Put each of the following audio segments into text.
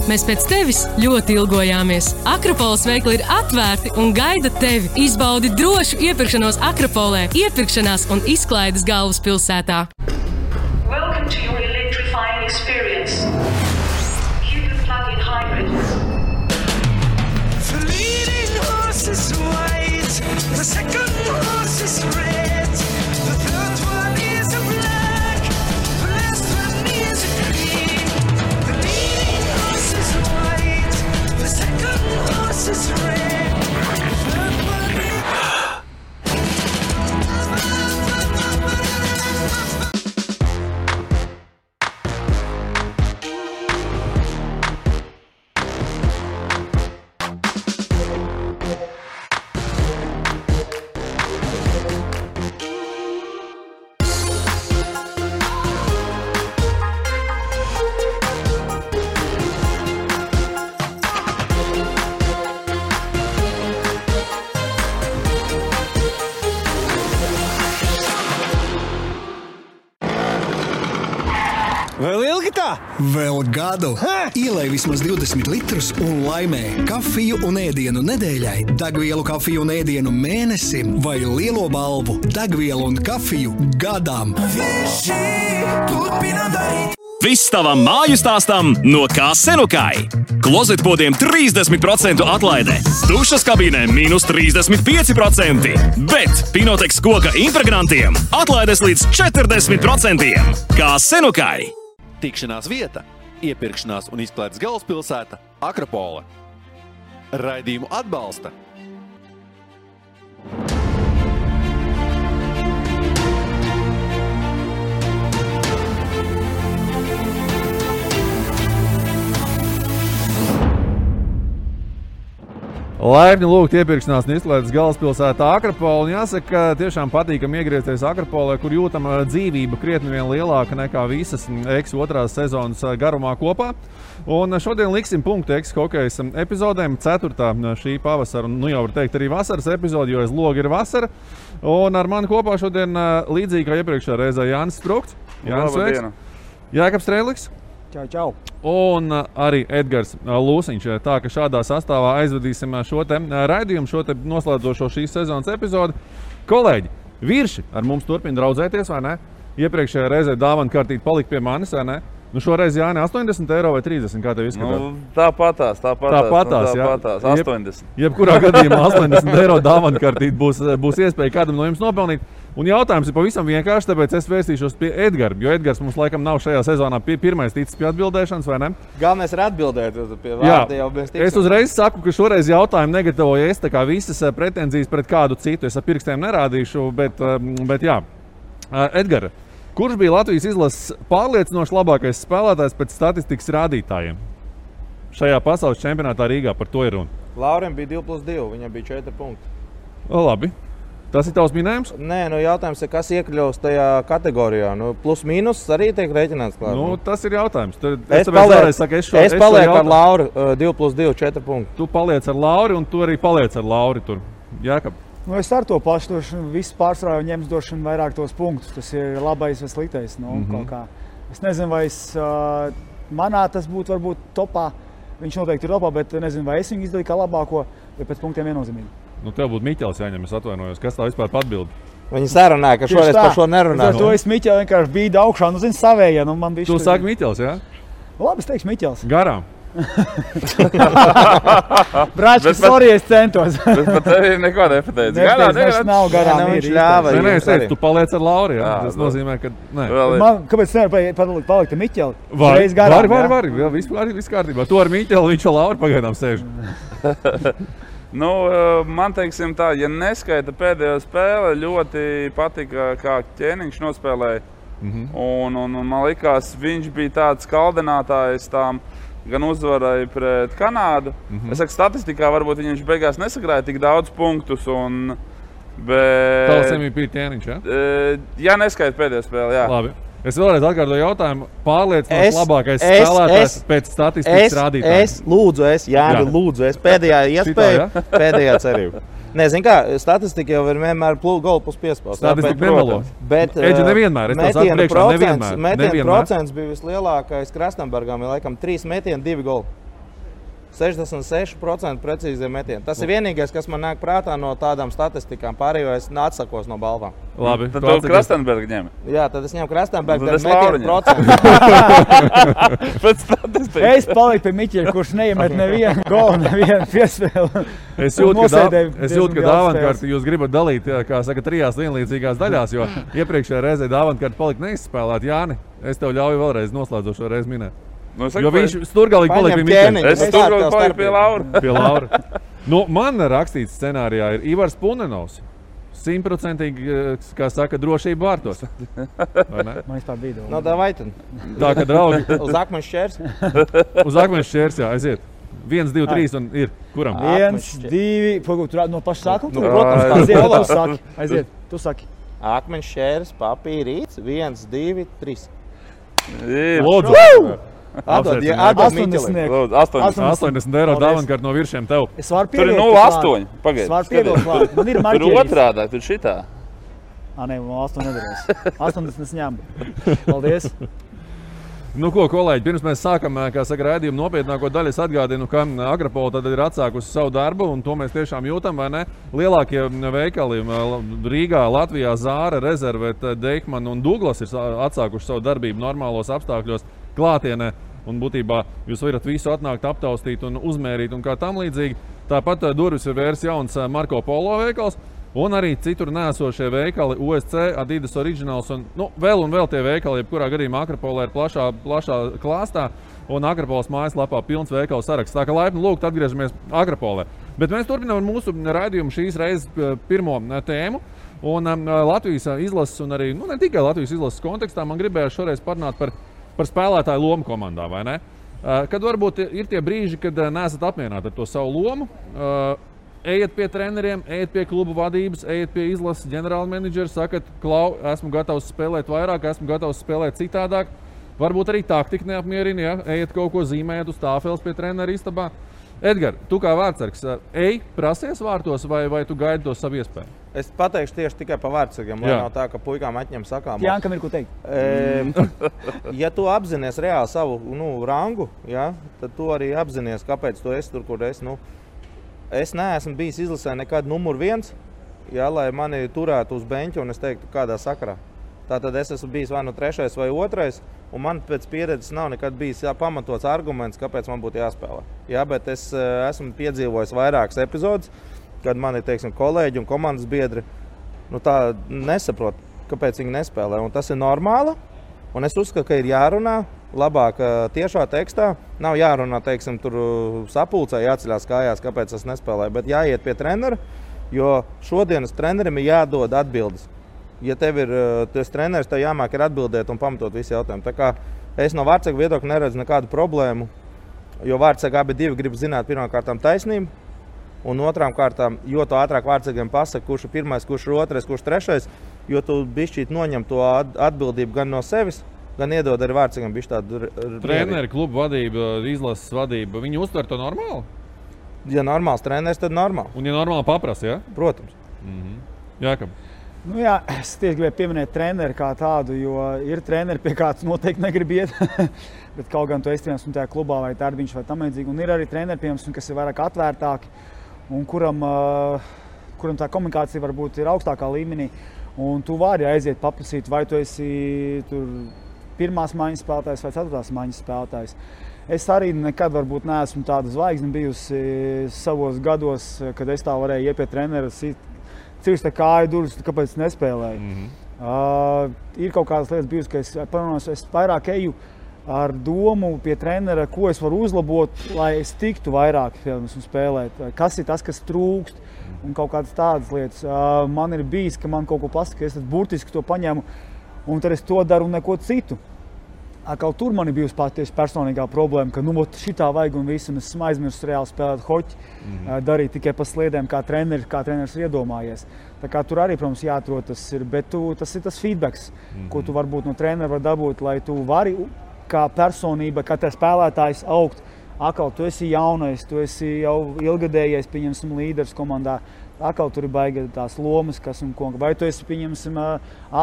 Mēs pēc tevis ļoti ilgojāmies. Akropoles veikli ir atvērti un gaida tevi. Izbaudi drošu iepirkšanos Akropolē, iepirkšanās un izklaides galvaspilsētā. Welcome to your electrifying experience. Cupid plug-in hybrid. The leading horse is white, the second horse is red, the third one is a black, the last one is a green. The leading horse is white, the second horse is red, the third one is... Vēl ilgi tā? Vēl gadu. Ielej vismaz 20 litrus un laimē kafiju un ēdienu nedēļai, degvielu kafiju un ēdienu mēnesim vai lielo balvu degvielu un kafiju gadam. Visi turpina darīt. Viss tavam māju stāstam no Kā-Senukai. Klozetpodiem 30% atlaide, dušas kabīnēm -35%, bet Pinotex koka impregnantiem atlaides līdz 40%. Kā-Senukai. Tikšanās vieta, iepirkšanās un izklaides galvaspilsēta Akropole. Raidījumu atbalsta Laipni lūgt iepirkšanās un izklaides galvaspilsētā Akropole. Un jāsaka, tiešām patīkam iegriezties Akropolē, kur jūtam dzīvība krietni vien lielāka nekā visas Eks otrās sezonas garumā kopā. Un šodien liksim punktu Eks hokejas epizodēm, 4. šī pavasara, un jau var teikt arī vasaras epizodi, jo aiz loga ir vasara. Un ar mani kopā šodien līdzīgi kā iepriekšējā reizē Jānis Sprukts. Jānis, sveiks. Jākabs Strēliks. Čau. Un arī Edgars Lūsiņš. Tā ka šādā sastāvā aizvadīsim šo te raidījumu, šo te noslēdzošo šīs sezonas epizodi. Kolēģi, virši ar mums turpina draudzēties, vai ne? Iepriekšējā reizē dāvana kārtīt palika pie manis, vai ne? Nu šoreiz, Jāni, 80 eiro vai 30, kā tev izskatās? Nu, tāpatās, 80. Jebkurā gadījumā 80 eiro dāvana kārtīt būs iespēja kādam no jums nopelnīt. Un jautājums ir pavisam vienkārši, tāpēc es vērstīšos pie Edgara, jo Edgars mums laikam nav šajā sezonā pirmais ticis pie atbildēšanas, vai ne? Galvenais ir atbildēt, pie vārda jau mēs tiksim. Es uzreiz saku, ka šoreiz jautājumu negatavoju es, tā kā visas pretenzijas pret kādu citu. Es ar pirkstiem nerādīšu, bet jā. Edgara, kurš bija Latvijas izlases pārliecinoši labākais spēlētājs pēc statistikas rādītājiem? Šajā pasaules čempionātā Rīgā par to ir runa. Laurim bija 2+2, viņam bija 4 punkti. Labi. Tas ir tavs minējums? Nē, jautājums ir, kas iekļaus tajā kategorijā. Plus mīnus arī tiek rēķināts klāt. Tas ir jautājums. Es palieku ar Lauru 2+2, 4 punkti. Tu paliec ar Lauri un tu arī paliec ar Lauri tur. Jākab. Es ar to pašu došanu, visu pārsvarā ņems došanu vairāk tos punktus. Tas ir labais vai sliktais. Kaut kā. Es nezinu, vai manā tas būtu varbūt topā. Viņš noteikti ir topā, bet nezinu, vai es viņu izdarīju kā labāko, vai pēc punktiem viennozīmīgi. Tev būtu Miķels jāņem, es atvainojos. Kas tā vispār atbild? Viņi sarunāja, ka šoreiz par šo nerunāja. To es Miķeli vienkārši bīdu augšā, zini, savējie. Tu saki Miķels, jā? Labi, es teikšu Miķels. Garām. Brāčki, sorry, es centos. Bet par tevi neko nepateicu. Garām nav garām. Viņš ļāva. Nē, es teicu, tu paliec ar Lauri, jā? Tas nozīmē, ka nē. Kāpēc nevar palikt ar Miķeli? Var, viss kārtībā. Tu ar Miķeli, viņš ar Lauri pagaidām sēž. Man teiksim tā, ja neskaita pēdējo spēli, ļoti patika, kā Ķēniņš nospēlēja. Un man likās, viņš bija tāds kaldinātājs tām gan uzvarai pret Kanādu. Es saku, statistikā varbūt viņš beigās nesakrāja tik daudz punktus. Tavs MVP Ķēniņš, jā? Ja neskaita pēdējo spēli, jā. Labi. Es vēlreiz atkārtoju jautājumu. Pārliecinoši labākais spēlētājs pēc statistikas rādītājiem. Lūdzu, pēdējā iespēja, pēdējā cerība. Nezinu kā, statistika jau ir vienmēr golu plus piespēles. Statistika nemelo. Eģi nevienmēr, es tev saku priekšā, nevienmēr. Metienu procents bija vislielākais Krasnambergam, laikam 3 metieni, 2 goli. 66% precīzie metieni. Tas ir vienīgais, kas man nāk prātā no tādām statistikām. Pārējo es atsakos no balvām. Labi. Tad tu Krastenbergu ņem. Jā, tad es ņemu Krastenbergu, Tad tad es Lauru metienu procentu. Pēc statistikas. Es paliku pie Miķeļa, kurš neiemet nevienu golu, nevienu piespēli. Es jūtu, ka dāvantkārti jūs gribat dalīt, kā saka, 3 vienlīdzīgās daļās, jo iepriekšējā reizē dāvantkārti palika neizspēlēt. Jāni, es tev ļauju vēlreiz noslēdzošo reizi minēt. Nu, Jo viņš sturgalīgi palika pie Miķeļa. Es turpināju paliku pie Laura. Pie Laura. Nu, man rakstīts scenārijā ir Ivars Punenovs. 100%, kā saka, drošība vārtos. Vai ne? Man vispār bija No davai tad. Tā, ka draugi Uz akmeņa šķērs. uz akmeņa šķērs, jā, aiziet. 1, 2, 3 un ir. Kuram? 1, 2, pagaid, tur no paša sākuma? Nu, protams, tā Aiziet, ir. tu saki. Aiziet, tu saki. Akmeņa šķērs, papīrīts. 1, 2, 3. Lūdzu. Atdod 80. Lūdzu, 80 eiro dāvantkārt no viršiem tev. Es varu Tur ir pievilkt 0,8. Pagaid. Es varu pievilkt klāt. Man ir Tur marķieris. otrādā, tur šitā. Nē, 8 nedarēs. 80 es ņemu. Paldies. Nu, ko, kolēģi, pirms mēs sākam, kā saka, raidījumu nopietnāko daļu, es atgādinu, ka Agrapola tad ir atsākusi savu darbu, un to mēs tiešām jūtam, vai ne? Lielākie veikali Rīgā, Latvijā, Zāra, Rezervet, Deichmann un Douglas ir atsākuši savu darbību normālos apstākļos klātienē, un būtībā jūs varat visu atnākt, aptaustīt un uzmērīt un kā tam līdzīgi. Tāpat durvis ir vērs jauns Marko Polo veikals, un arī citur nēsošie veikali, OSC, Adidas Originals un vēl tie veikali, jebkurā gadījumā Akrapolē ir plašā klāstā un Akrapolas mājaslapā pilns veikalu saraksts. Tā kā laipni lūgt atgriežamies Akrapolē. Bet mēs turpinām ar mūsu raidījumu šīs reizes pirmo tēmu. Un Latvijas izlases un arī, ne tikai Latvijas izlases kontekstā, man gribējās šoreiz parunāt par spēlētāju lomu komandā, vai ne? Kad varbūt ir tie brīži, kad neesat apmierināti ar to savu lomu, ejiet pie treneriem, ejiet pie klubu vadības, ejiet pie izlases ģenerāla menedžera, sakat, Klau, esmu gatavs spēlēt vairāk, esmu gatavs spēlēt citādāk. Varbūt arī taktika neapmierina, ja? Ejiet kaut ko zīmējot uz tāfeles pie trenera istabā. Edgar, tu kā vārdsargs, ej, prasies vārtos vai tu gaidi to savu iespēju? Es pateikšu tieši tikai par vārdsargiem, lai nav tā, ka puikām atņem sakām. Jānkam ir ko teikt. Ja tu apzinies reāli savu rangu, ja, tad tu arī apzinies, kāpēc tu esi tur, kur esi. Es neesmu bijis izlasē nekad numur 1, ja, lai mani turētu uz beņķa un es teiktu, kādā sakarā. Tātad es esmu bijis vai 3. vai 2, un man pēc pieredzes nav nekad bijis pamatots arguments, kāpēc man būtu jāspēlē. Ja, bet es esmu piedzīvojis vairākas epizodes, kad mani, teiksim, kolēģi un komandas biedri tā nesaprot, kāpēc viņi nespēlē. Un tas ir normāli, un es uzskatu, ka ir jārunā labāk tiešā tekstā. Nav jārunā, teiksim, tur sapulcē, jāceļās kājās, kāpēc es nespēlēju, bet jāiet pie trenera, jo šodienas trenerim ir jādod atbildes. Ja tev ir tas treneris, tev jāmāk ir atbildēt un pamatot visu jautājumu. Tā kā es no vārdsarga viedokļa neredzu nekādu problēmu, jo vārdsargi abi divi grib zināt pirmkārtām taisnību, un otrām kārtām, jo to ātrāk vārdsargiem pasaka, kurš ir 1, kurš ir 2, kurš 3, jo tu bišķīt noņem to atbildību gan no sevis, gan iedod arī vārdsargiem bišķi tādu Treneri, klubu vadība, izlases vadība, viņi uztver to normāli? Ja normāls treneris, tad normāli. Un ja normāli paprasa, ja? Protams. Jākam. Jā, es tieši gribēju pieminēt treneri kā tādu, jo ir treneri, pie kāds noteikti negrib iet, bet kaut gan tu esi tajā klubā vai Tārbiņš vai tam līdzīgi. Un ir arī treneri, piemēram, kas ir vairāk atvērtāki un kuram tā komunikācija varbūt ir augstākā līmenī. Un tu vari aiziet paprasīt, vai tu esi tur 1. maiņas spēlētājs vai 4. maiņas spēlētājs. Es arī nekad varbūt neesmu tāda zvaigzne bijusi savos gados, kad es tā varēju iet pie trenera, cirst kāju durvis, kāpēc nespēlēju. Ir kaut kādas lietas bijusi, ka es vairāk eju ar domu pie trenera, ko es varu uzlabot, lai es tiktu vairāk spēlēt. Kas ir tas, kas trūkst un kaut kādas tādas lietas. Man ir bijis, ka man kaut ko pasaka, es tad burtiski to paņemu un tad es to daru un neko citu. Kaut tur man ir bijusi tieši personīgā problēma, ka šitā vajag un visu, un es esmu aizmirsis reāli spēlēt hoķi, darīt tikai pa sliedēm, kā treneris ir iedomājies. Tā kā tur arī, protams, jāatrod tas ir, bet tas ir tas feedbacks, ko tu varbūt no trenera var dabūt, lai tu vari kā personība, kā spēlētājs augt. Akal, tu esi jaunais, tu esi jau ilgadējais, pieņemsim, līderis komandā. Akal tur ir baigi tās lomas, kas un ko. Vai tu esi, pieņemsim,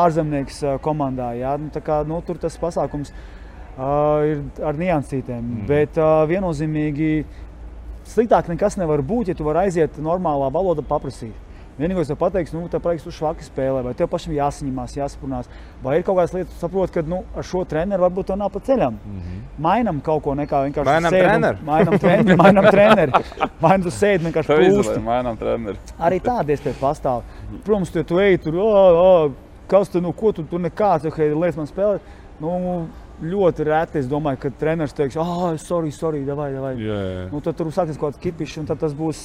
ārzemnieks komandā, jā? Tā kā, tur tas pasākums ir ar niansītēm. Bet viennozīmīgi sliktāk nekas nevar būt, ja tu vari aiziet normālā valoda paprasīt. Vienīgais tev pateiks, tev prieks tu švaki spēlē, vai tev pašam jāsaņemās, jāsaprunās, vai ir kaut kādas lietas, tu saproti, ka ar šo treneru varbūt tev nav pa ceļam. Mainam kaut ko, nekā vienkārši Mainam treneri. Vai tu sēdi vienkārši pūsti. Mainam treneri. Arī tāda iespēja pastāv. Protams, tu ej tur, kas tu, ko tu tur nekāds, lietas man spēlēt. Ļoti reti, es domāju, ka treneris teiks, sorry, davai. Tad tur sāksies kaut kāds kipišs, un tad tas būs,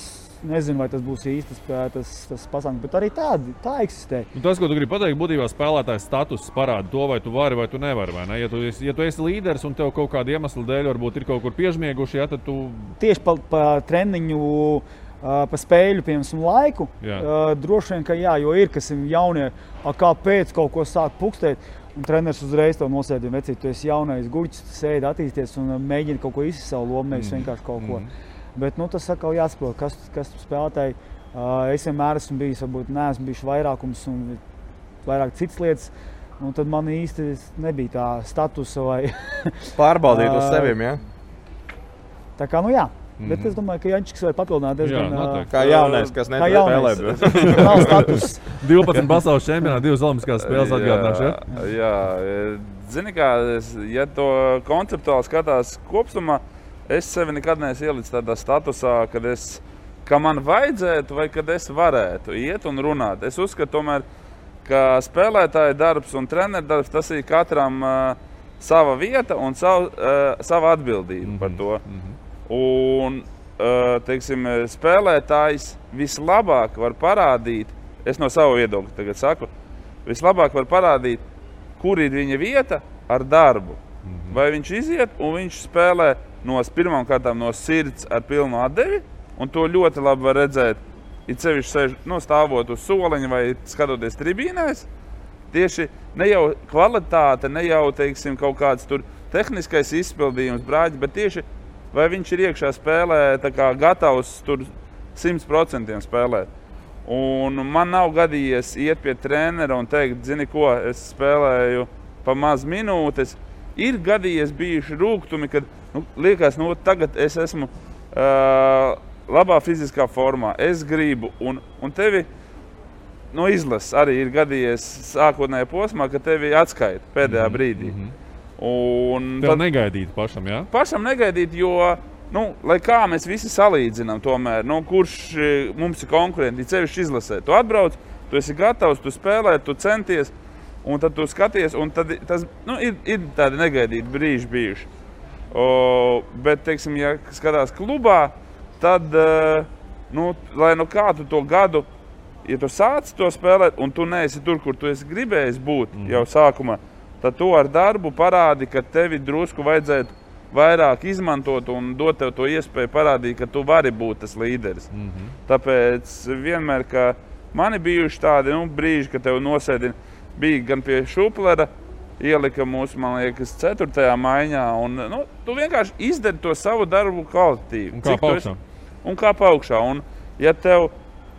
nezinu, vai tas būs īstas tas pasākums, bet arī tā eksistē. Tas, ko tu gribi pateikt, būtībā spēlētājs status parāda to, vai tu vari vai tu nevari, vai ne? Ja tu esi līderis un tev kaut kāda iemesla dēļ varbūt ir kaut kur piežmieguši, tad tu... Tieši pa treniņu, pa spēļu, piemēram, laiku, droši vien, ka jā, jo ir, kas ir jaunie, kāpēc kaut ko sāk pukstēt. Un treneris uzreiz to nosēdina, vecīt, tu esi jaunais guļķis, sēdi attīsties un mēģini kaut ko izsist savu lomu, nevis vienkārši kaut ko. Bet tas atkal jāsaprot, kas spēlētāji. Es vienmēr esmu bijis, varbūt neesmu bijis vairākums un vairāk citas lietas. Tad man īsti nebija tā statusa vai... Pārbaudīt uz sevim, ja? Tā kā, jā. Bet es domāju, ka Jančiks var papildināt diezgan... Kā jaunais, kas netur spēlē. Nav status. 12 pasaules čempionāti, 2 olimpiskās spēles atgādināšu, ja? Jā, zini kā, ja to konceptuāli skatās kopsumā, es sevi nekad neesmu ielicis tādā statusā, ka man vajadzētu vai kad es varētu iet un runāt. Es uzskatu tomēr, ka spēlētāja darbs un treneru darbs, tas ir katram sava vieta un sava atbildība par to. Un, teiksim, spēlētājs vislabāk var parādīt, es no savu viedokļu tagad saku, vislabāk var parādīt, kur ir viņa vieta ar darbu. Vai viņš iziet un viņš spēlē pirmām kārtām no sirds ar pilnu atdevi, un to ļoti labi var redzēt, it sevišķi stāvot uz soliņa vai skatoties tribīnēs. Tieši ne jau kvalitāte, ne jau, teiksim, kaut kāds tur tehniskais izpildījums, brāģi, bet tieši vai viņš ir iekšā spēlē tā kā gatavs tur 100% spēlēt. Un man nav gadījies iet pie trenera un teikt, zini ko, es spēlēju pa maz minūtes. Ir gadījies bijuši rūgtumi, kad liekas, tagad es esmu labā fiziskā formā, es gribu, un tevi izlases arī ir gadījies sākotnējā posmā, ka tevi atskaita pēdējā brīdī. Tev negaidīt pašam, jā? Pašam negaidīt, jo, lai kā mēs visi salīdzinām tomēr, kurš mums ir konkurenti, cevišķi izlasē. Tu atbrauc, tu esi gatavs, tu spēlē, tu centies, un tad tu skaties, un tad tas, ir tādi negaidīti brīži bijuši. Bet, teiksim, ja skatās klubā, tad, lai kā tu to gadu, ja tu sāc to spēlēt, un tu neesi tur, kur tu esi gribējis būt jau sākumā, tad tu ar darbu parādi, ka tevi drusku vajadzētu vairāk izmantot un dot tev to iespēju parādīt, ka tu vari būt tas līderis. Tāpēc vienmēr, ka mani bijuši tādi brīži, ka tev nosēdina, bija gan pie Šuplera, ielika mūsu, man liekas, 4. maiņā, un tu vienkārši izdari to savu darbu kvalitatīvi. Un kā augšā. Un ja tev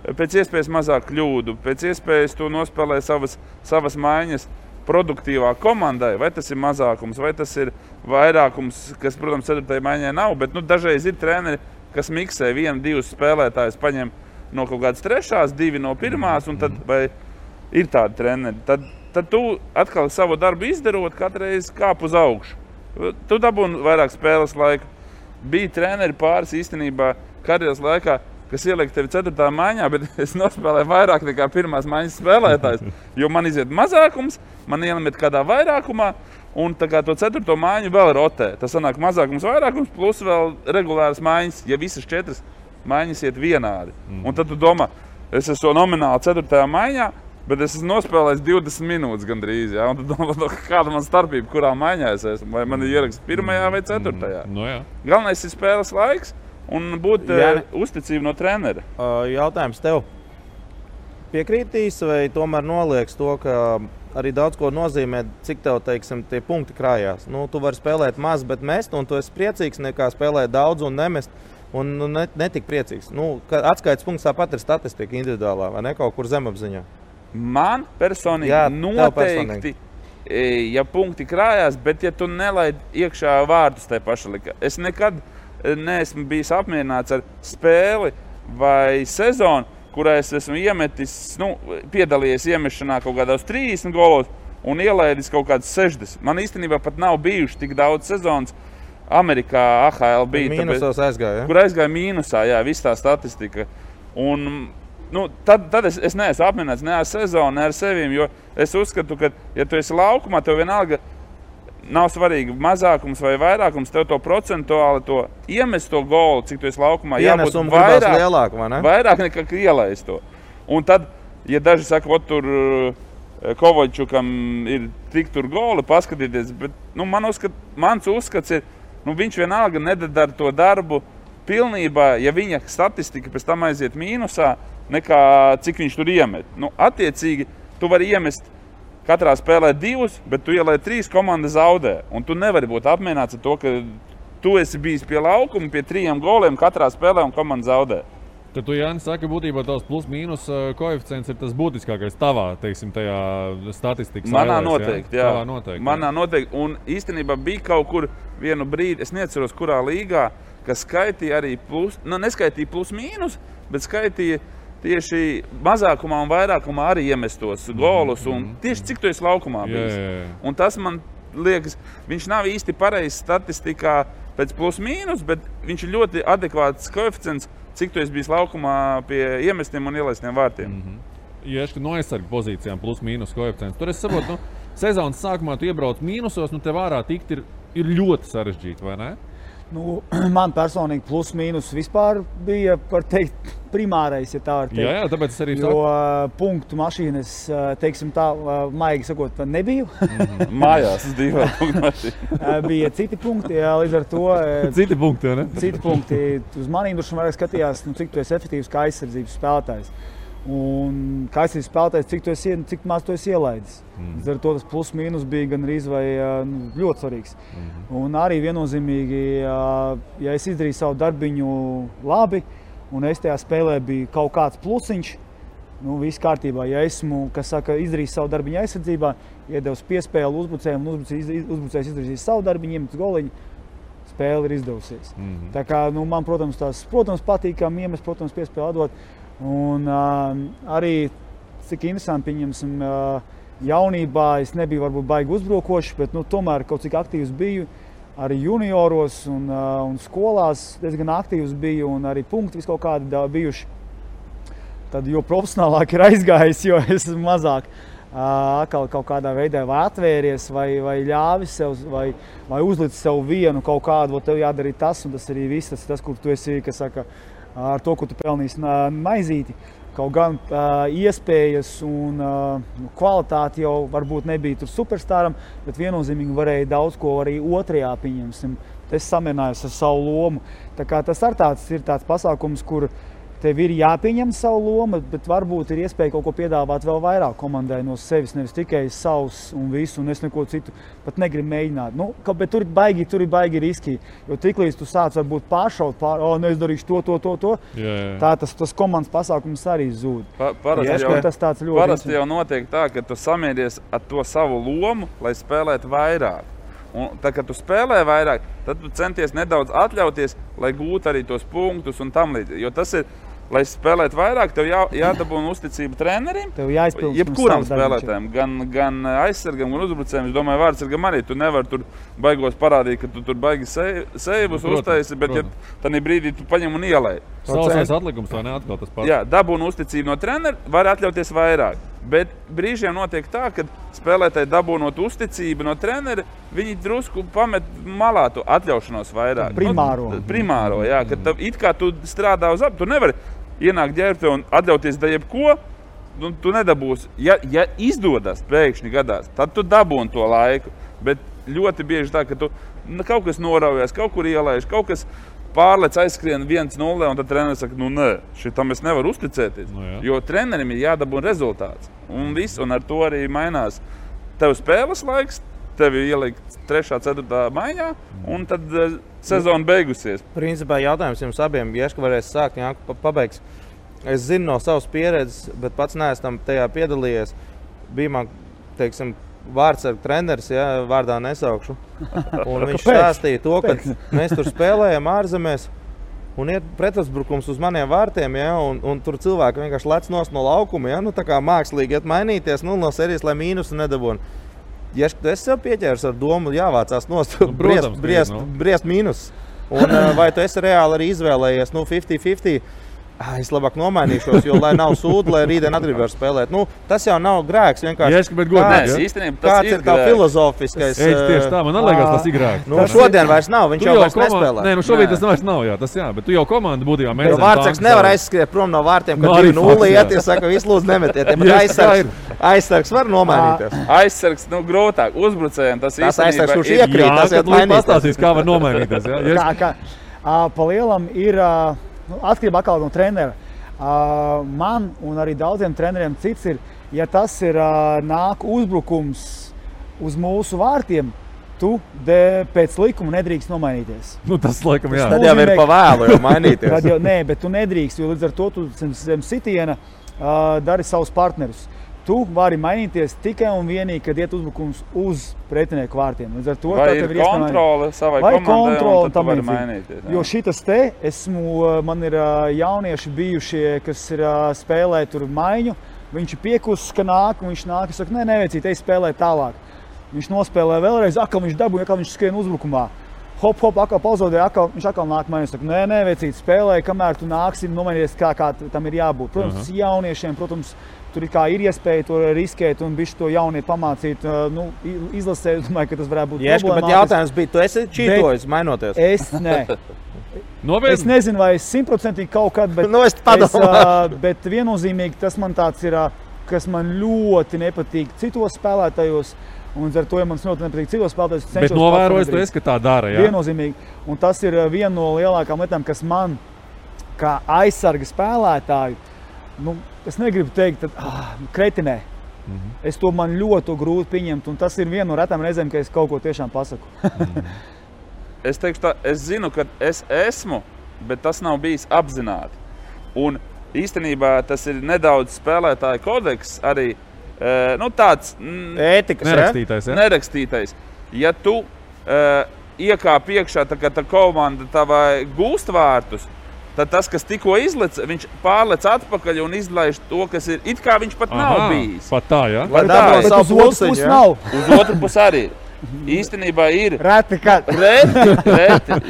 pēc iespējas mazāk kļūdu, pēc iespējas tu nospēlē savas maiņas produktīvā komandai, vai tas ir mazākums, vai tas ir vairākums, kas, protams, 4. maiņai nav, bet dažreiz ir treneri, kas miksē 1-2 spēlētājus, paņem no kaut kādas 3., 2 no 1, un tad vai ir tādi treneri. Tad tu atkal savu darbu izdarot, katreiz kāp uz augšu. Tu dabūni vairāk spēles laiku. Bija treneri pāris īstenībā karjeras laikā, kas ieliek tevi 4. maiņā, bet es nospēlēju vairāk nekā 1. maiņas spēlētājs, jo man iziet mazākums, man iemet kādā vairākumā, un tā kā to 4. maiņu vēl rotē. Tas sanāk mazākums, vairākums, plus vēl regulāras maiņas, ja visas 4 maiņas iet vienādi. Un tad tu domā, es esmu nomināli 4. maiņā, bet es esmu nospēlējis 20 minūtes gandrīz, ja? Un tad domā, kāda man starpība, kurā maiņā es esmu, vai man ir ieraksts 1. vai 4. Galvenais ir spēles laiks, un būt uzticība no trenera. Jautājums tev. Piekrītīs vai tomēr nolieks to, ka arī daudz ko nozīmē, cik tev, teiksim, tie punkti krājās? Tu vari spēlēt maz, bet mest, un tu esi priecīgs nekā spēlēt daudz un nemest, un netik priecīgs. Atskaites punkts tāpat ir statistika individuālā, vai ne, kaut kur zemapziņā? Man personīgi noteikti, ja punkti krājās, bet ja tu nelaid iekšā vārtus tai paša lika. Es nekad neesmu bijis apmierināts ar spēli vai sezonu, kurā es esmu iemetis, piedalījies iemešanā kaut kādos 30 golos un ielaidis kaut kāds 60. Man īstenībā pat nav bijuši tik daudz sezonas. Amerikā AHL bija. Mīnusos aizgāja, ja? Kur aizgāja mīnusā, jā, viss tā statistika. Un, tad es neesmu apmierināts ne ar sezonu, ne ar sevīm, jo es uzskatu, ka, ja tu esi laukumā, tev vienalga nav svarīgi mazākums vai vairākums, tev to procentuāli to iemest to golu, cik tu esi laukumā, jābūt vairāk nekā ielaist to. Un tad, ja daži saka, tur Kovaļčukam ir tik tur goli, paskatīties, bet mans uzskats ir, viņš vienalga nedara to darbu pilnībā, ja viņa statistika pēc tam aiziet mīnusā, nekā cik viņš tur iemet. Attiecīgi, tu vari iemest katrā spēlē 2, bet tu ielai 3, komanda zaudē. Un tu nevari būt apmierināts ar to, ka tu esi bijis pie laukuma, pie 3 goliem katrā spēlē un komanda zaudē. Tad tu, Jānis, saka, būtībā tavs plus-mīnus koeficients ir tas būtiskākais tavā, teiksim, tajā statistikas Manā noteikti, jā. Tavā noteikti. Manā noteikti. Un īstenībā bija kaut kur vienu brīdi, es neatceros, kurā līgā, kas skaitīja arī neskaitīja plus-mīnus, bet skaitīja tieši mazākumā un vairākumā arī iemestos golus. Un tieši cik tu esi laukumā bijis. Un tas man liekas, viņš nav īsti pareizs statistikā pēc plus-mīnus, bet viņš ir ļoti adekvāts koeficients, cik tu esi bijis laukumā pie iemestiem un ielaistiem vārtiem. Ja no aizsarga pozīcijām plus-mīnus koeficients, tur es saprotu, sezonas sākumā tu iebrauc mīnusos, tev ārā tikt ir ļoti sarežģīti, vai ne? Man personīgi plus-mīnus vispār bija, var teikt, primārais, ja tā var teikt. Jā, tāpēc es arī saku. Jo punktu mašīnas, teiksim tā, maigi sakot, nebiju. Mājās, es divi punktu mašīna. Bija citi punkti, jā, līdz ar to. Citi punkti, jā, ne? Citi punkti. Uz manīm droši vairāk skatījās, cik tu esi efektīvs kā aizsardzības spēlētājs. Un kā aizsardzības spēlētājs, cik maz tu esi ielaidis. Līdz ar to tas plus-mīnus bija gan arī ļoti svarīgs. Un arī viennozīmīgi, ja es izdarīju savu darbiņu labi, un es tajā spēlē biju kaut kāds plusiņš, viss kārtībā. Ja esmu, izdarījis savu darbiņu aizsardzībā, iedevis piespēli uzbrucējiem, un uzbrucējs izdarījis savu darbiņu, iemet goliņu, spēle ir izdevusies. Tā kā, man, protams, patīkam iemest, protams, piespēli atdot. Un arī, cik interesanti, pieņemsim, jaunībā es nebiju varbūt baigi uzbrukošs, bet tomēr kaut cik aktīvs biju. Arī junioros un skolās diezgan aktīvs biju un arī punkti vis kaut kādi bijuši. Tad jo profesionālāk ir aizgājis, jo es esmu mazāk atkal kaut kādā veidā vai atvēries, vai ļāvis sev, vai uzlicis sev vienu kaut kādu, tev jādara tas, un tas arī viss, tas, kur tu esi, kas saka, ar to, ko tu pelnīsi maizīti. Kaut gan iespējas un kvalitāti jau varbūt nebija tur superstāram, bet viennozīmīgi varēja daudz ko arī otrajā, pieņemsim. Es samierinājos ar savu lomu. Tā kā tas ir tāds pasākums, kur tev ir jāpieņem savu lomu, bet varbūt ir iespēja kaut ko piedāvāt vēl vairāk komandai no sevis, nevis tikai savs un visu, un es neko citu pat negribu mēģināt. Bet tur ir baigi riski, jo tiklīdz tu sāc varbūt pāršaut, es darīšu to. Tā tas komandas pasākums arī zūd. Parasti jau notiek tā, ka tu samieries ar to savu lomu, lai spēlētu vairāk. Un tā, kad tu spēlē vairāk, tad tu centies nedaudz atļauties, lai gūtu arī tos punktus un tam līdzīgi. Jo tas ir, lai spēlētu vairāk, tev jādabūna uzticība trenerim, jebkuram spēlētājam, gan aizsargam, gan uzbrucējiem. Es domāju, vārdsargam arī. Tu nevari tur baigos parādīt, ka tu tur baigi seivus uztaisi, bet ja tādā brīdī tu paņem un ielai. Sausais atlikums vai ne atkal tas pats? Jā, dabūna uzticību no trenera, var atļauties vairāk. Bet brīžiem notiek tā, ka spēlētāji dabūnot uzticību no trenera, viņi drusku pamet malā to atļaušanos vairāk. Primāro, jā, ka it kā tu strādā uz tu nevari ienākt ģērbte un atļauties da jebko, tu nedabūsi. Ja izdodas pēkšņi gadās, tad tu dabūni to laiku. Bet ļoti bieži tā, ka tu kaut kas noraujas, kaut kur ielaiž, kaut kas pārlec aizskrien 1-0, un tad treneris saka, nē, šitam es nevaru uzticēties. Jo trenerim ir jādabūna rezultāts. Un viss, un ar to arī mainās. Tev spēles laiks, tevi ielikt 3., 4. maiņā, un tad sezona beigusies. Principā jautājums jums abiem, Ieška varēs sākt, Jāka pabeigs. Es zinu no savas pieredzes, bet pats neesmu tajā piedalījies. Bija man, teiksim, vārdsargu treneris, ja, vārdā nesaukšu. Un viņš stāstīja to, ka mēs tur spēlējam ārzemēs un ir pretuzbrukums uz maniem vārtiem, ja, un tur cilvēki vienkārši lec nost no laukuma, ja, nu tā kā mākslīgi iet mainīties, nu no serijas, lai mīnusu nedabūn. Ja es sev pieķērs ar domu, jāvācās nost, briest mīnus. Un vai tu esi reāli arī izvēlējies, 50-50, es labāk nomainīšos, jo lai nav sūdu, lai rītdien atgribēju spēlēt. Nu, tas jau nav grēks, vienkārši. Kāds ir tā filozofiskais? Tieši tā, man liekas, tas ir grēks. Nu, šodien vairs nav, viņš jau vairs nespēlē. Nē, nu šobrīd tas vairs nav, jā, tas jā, bet tu jau komanda būtībā mēģināji. Vārtsargs nevar aizskriet prom no vārtiem, kad 2-0 iet, ja saka, visu lūdzu nemetiet. Aizsargs var nomainīties. Aizsargs, grūtāk, uzbrucējiem tas aizsargs, kurš iekrīt, tas iet mainīties. Pastāstīs, kā var nomainīties, jā. Pa lielam ir atkarība atkal no trenera. Man un arī daudziem treneriem cits ir, ja tas ir nāk uzbrukums uz mūsu vārtiem, tu pēc likuma nedrīkst nomainīties. Nu, tas laikam jā. Tad jau ir pa vēlu jau mainīties. Nē, bet tu nedrīkst, jo līdz ar to tu zem sitiena dari savus partnerus. Tu vari mainīties tikai un vienīgi, kad iet uzbrukums uz pretinieku vārtiem. Līdz ar to, vai ir kontrole savai komandai, un tad tu vari mainīties. Jo šitas man ir jaunieši bijušie, kas ir spēlē tur maiņu, viņš ir piekusis, ka nāk, un viņš nāk, saka, neveicīt, ej spēlē tālāk. Viņš nospēlē vēlreiz, atkal viņš dabūja, atkal viņš skrien uzbrukumā. Hop, atkal pauzodē, viņš atkal nāk mainīt. Saka, neveicīt, spēlē, kamēr tu nāksi nomainīties, kā tam ir jābūt. Protams, jauniešiem, tur ir iespēja to riskēt un bišķi to jaunieti pamācīt, izlasēt. Domāju, ka tas varētu būt problemātiski. Bet jautājums bija, tu esi čītojis, mainoties? Es Es nezinu, vai es 100% kaut kad, bet viennozīmīgi tas man tāds ir, kas man ļoti nepatīk citos spēlētājos. Un ar to, ja man ļoti nepatīk citos spēlētājos, bet novērojis tu esi, ka tā dara, jā? Viennozīmīgi. Un tas ir viena no lielākām lietām, kas man, kā aizsarga spēlētāju, es negribu teikt, kretinē. Es to man ļoti grūti pieņemt, un tas ir viena no retām reizēm, ka es kaut ko tiešām pasaku. Es teikšu tā, es zinu, ka es esmu, bet tas nav bijis apzināti. Un īstenībā tas ir nedaudz spēlētāju kodeks arī, tāds ētikas, nerakstītais. Ja tu iekāp iekšā, tā kā tā komanda tavai gūst vārtus, tad tas, kas tikko izlec, viņš pārlec atpakaļ un izlaiž to, kas ir, it kā viņš pat nav bijis. Pat tā, jā? Bet uz otru pusi nav. Uz otru pusi arī. Īstenībā ir. Reti,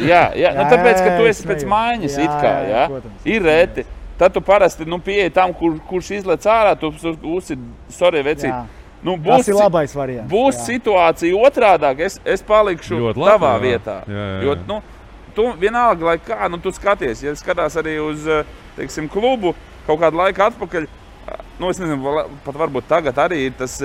jā. Tāpēc, ka tu esi pēc maiņas, it kā, jā. Ir reti. Tad tu parasti, pieeji tam, kurš izlec ārā, tu uzsi, sorry, vecīt. Tas ir labais variants. Būs situācija otrādāk, es palikšu tavā vietā. Jo, tu vienalga, lai kā, tu skaties, ja skatās arī uz, teiksim, klubu kaut kādu laiku atpakaļ, es nezinu, pat varbūt tagad arī ir tas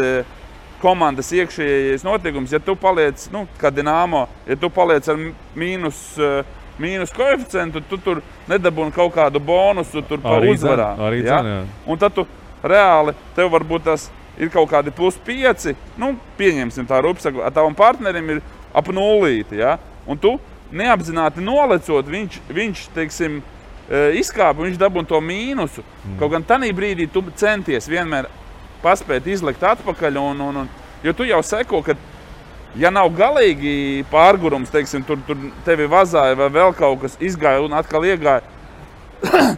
komandas iekšējais notiekums, ja tu paliec, kā Dinamo, ja tu paliec ar mīnus koeficientu, tu tur nedabūni kaut kādu bonusu tur pa uzvarām. Jā? Un tad tu reāli, tev varbūt tas ir kaut kādi +5, pieņemsim tā rupsaku, ar tavam partnerim ir ap 0, ja? Un tu neapzināti nolecot, viņš teiksim, izkāpa, viņš dabūna to mīnusu. Kaut gan tanī brīdī tu centies vienmēr paspēt izlikt atpakaļ, jo tu jau seko, ka ja nav galīgi pārgurums, teiksim, tur tevi vazāja vai vēl kaut kas izgāja un atkal iegāja,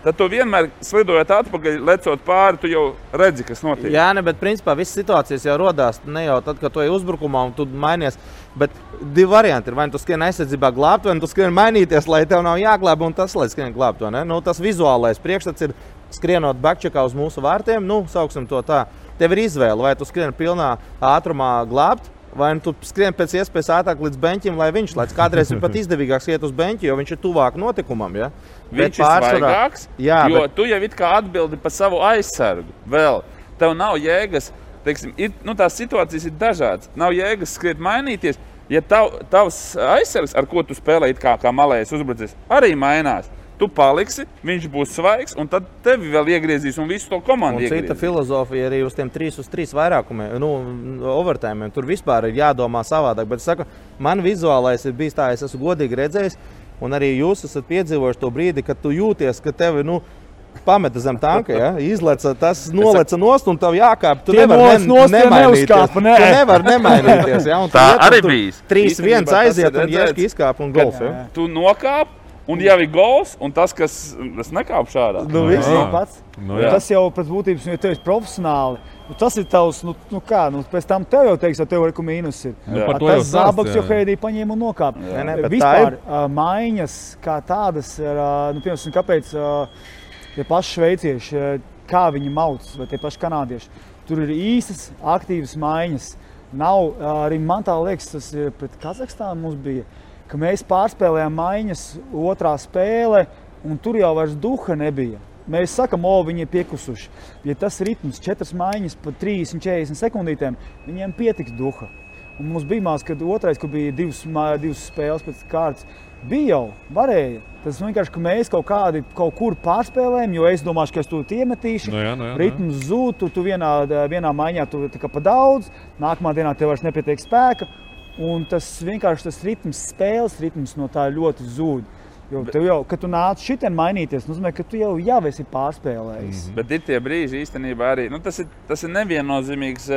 tad tu vienmēr slidojot atpakaļ, lecot pāri, tu jau redzi, kas notiek. Jā, bet principā visas situācijas jau rodās ne jau tad, kad tu ej uzbrukumā un tu mainies, bet divi varianti ir, vai tu skrien aizsardzībā glābt, vai tu skrien mainīties, lai tev nav jāglāb un tas, lai skrien glābt, vai ne? Tas vizuālais priekšstats ir skrienot backcheckā uz mūsu vārtiem, sauksim to tā. Tev ir izvēle, vai tu skrien pilnā ātrumā glābt, vai tu skrien pēc iespējas ātrāk līdz beņķim, lai viņš lēc. Kādreiz ir pat izdevīgāks iet uz beņķi, jo viņš ir tuvāk notikumam, ja? Viņš ir svaigāks, jo tu jau it kā atbildi par savu aizsargu vēl. Tev nav jēgas, teiksim, tās situācijas ir dažādas. Nav jēgas skriet mainīties, ja tavs aizsargs, ar ko tu spēlē it kā malējais uzbrucis, arī mainās. Tu paliksi, viņš būs svaigs, un tad tevi vēl iegriezīs un visu to komandu iegriezīs. Un cita filozofija arī uz tiem 3-3 vairākumiem, overtājumiem. Tur vispār ir jādomā savādāk, bet es saku, man vizuālais ir bijis tā, es esmu godīgi redzējis, un arī jūs esat piedzīvojuši to brīdi, kad tu jūties, ka tevi, pameta zem tanka, ja? Izleca, tas noleca nost un tev jākāp. Tu Tie nevar nost neuzkāpa, nē. Tu nevar nemainīties, ja? Un Tā tu arī tur bijis. 3-1 Īstenībā aiziet tas ir un Ješka redzēts, izkāp un gols, ja? Tu nokāp, un jau ir gols, un tas, kas nekāp šādā. Nu, viss. Tas pats. Nu, jā. Tas jau pēc būtības, ja tev ir profesionāli, tas ir tavs, pēc tam tev jau teiks, tev ir mīnus ir. par to jau Tas stāst, zābaks jā. jau Heidī paņēma un nokāpa. Nē, bet Vispār maiņas kā tādas, piemēram, kāpēc tie paši šveicieši, kā viņi mauc, vai tie paši kanādieši, tur ir īstas, aktīvas maiņas. Nav, arī man tā liekas, tas ir pret Kazahstānu mums bija, ka mēs pārspēlējām maiņas otrā spēle, un tur jau vairs duha nebija. Mēs sakam, viņi ir piekusuši. Ja tas ritms 4 maiņas pa 30-40 sekundītēm, viņiem pietiks duha. Un mums bija mās, kad otrais, kur bija divas spēles pēc kārtas, bija jau, varēja. Tas vienkārši, ka mēs kaut kur pārspēlējam, jo es domāšu, ka es to iemetīšu. Ritms zūd, tu vienā maiņā tu tā kā pa daudz, nākamā dienā tev vairs nepietiek spēka. Un tas vienkārši tas ritms, spēles ritms no tā ļoti zūd. Jo tev jau, kad tu nāc šitien mainīties, nozīmē, ka tu jau esi pārspēlējis. Bet ir tie brīži īstenībā arī, tas ir neviennozīmīgs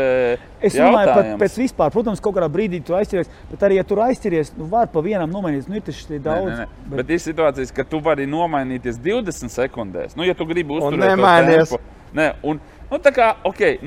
Es domāju, pat pēc vispār, protams, kaut kādā brīdī tu aizķeries, bet arī, ja tu aizķeries, var pa vienam nomainīties, ir taču daudz. Bet ir situācijas, ka tu vari nomainīties 20 sekundēs, ja tu gribi uzturēt nemainies. to tempu. Tā kā,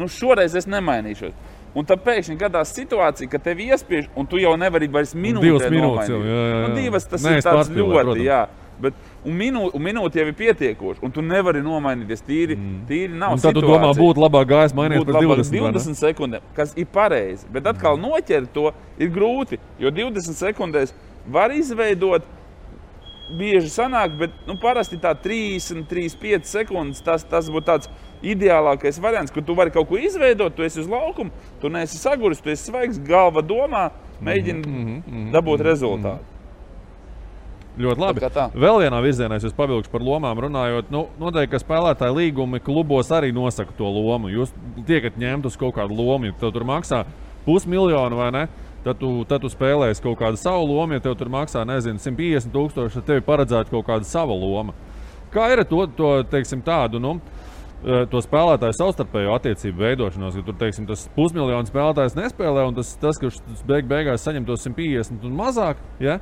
šoreiz es nemainīšos. Un tad pēkšņi gadās situācija, ka tev iespiež, un tu jau nevari vairs minūtē nomainīt. Divas tas ir tāds ļoti, jā. Bet, un minūte jau ir pietiekoši, un tu nevari nomainīties. Tīri nav situācija. Un tad tu domā, būtu labāk gājis mainīt pēc 20 sekundēm, kas ir pareizi. Bet atkal noķert to ir grūti, jo 20 sekundēs var izveidot, bieži sanāk, bet parasti tā 30-35 sekundes, tas būtu tāds ideālākais variants, kur tu vari kaut ko izveidot, tu esi uz laukumu, tu neesi saguris, tu esi svaigs, galva domā, mēģini dabūt rezultātu. Ļoti labi. Vēl vienā virzienā es pavilkšu par lomām runājot. Noteikti, ka spēlētāji līgumi klubos arī nosaka to lomu. Jūs tiekat ņemt uz kaut kādu lomu, ja tev tur maksā 500,000 vai ne? Tad tu spēlēsi kaut kādu savu lomu, ja tev tur maksā, 150,000, tad tev ir paredzēta kaut kāda sava loma. Kā ir to teiksim, tādu, to spēlētāju savstarpējo attiecību veidošanos, ka tur, teiksim, tas 500,000 spēlētājs nespēlē, un tas kurš beigās saņem to 150 un mazāk, ja?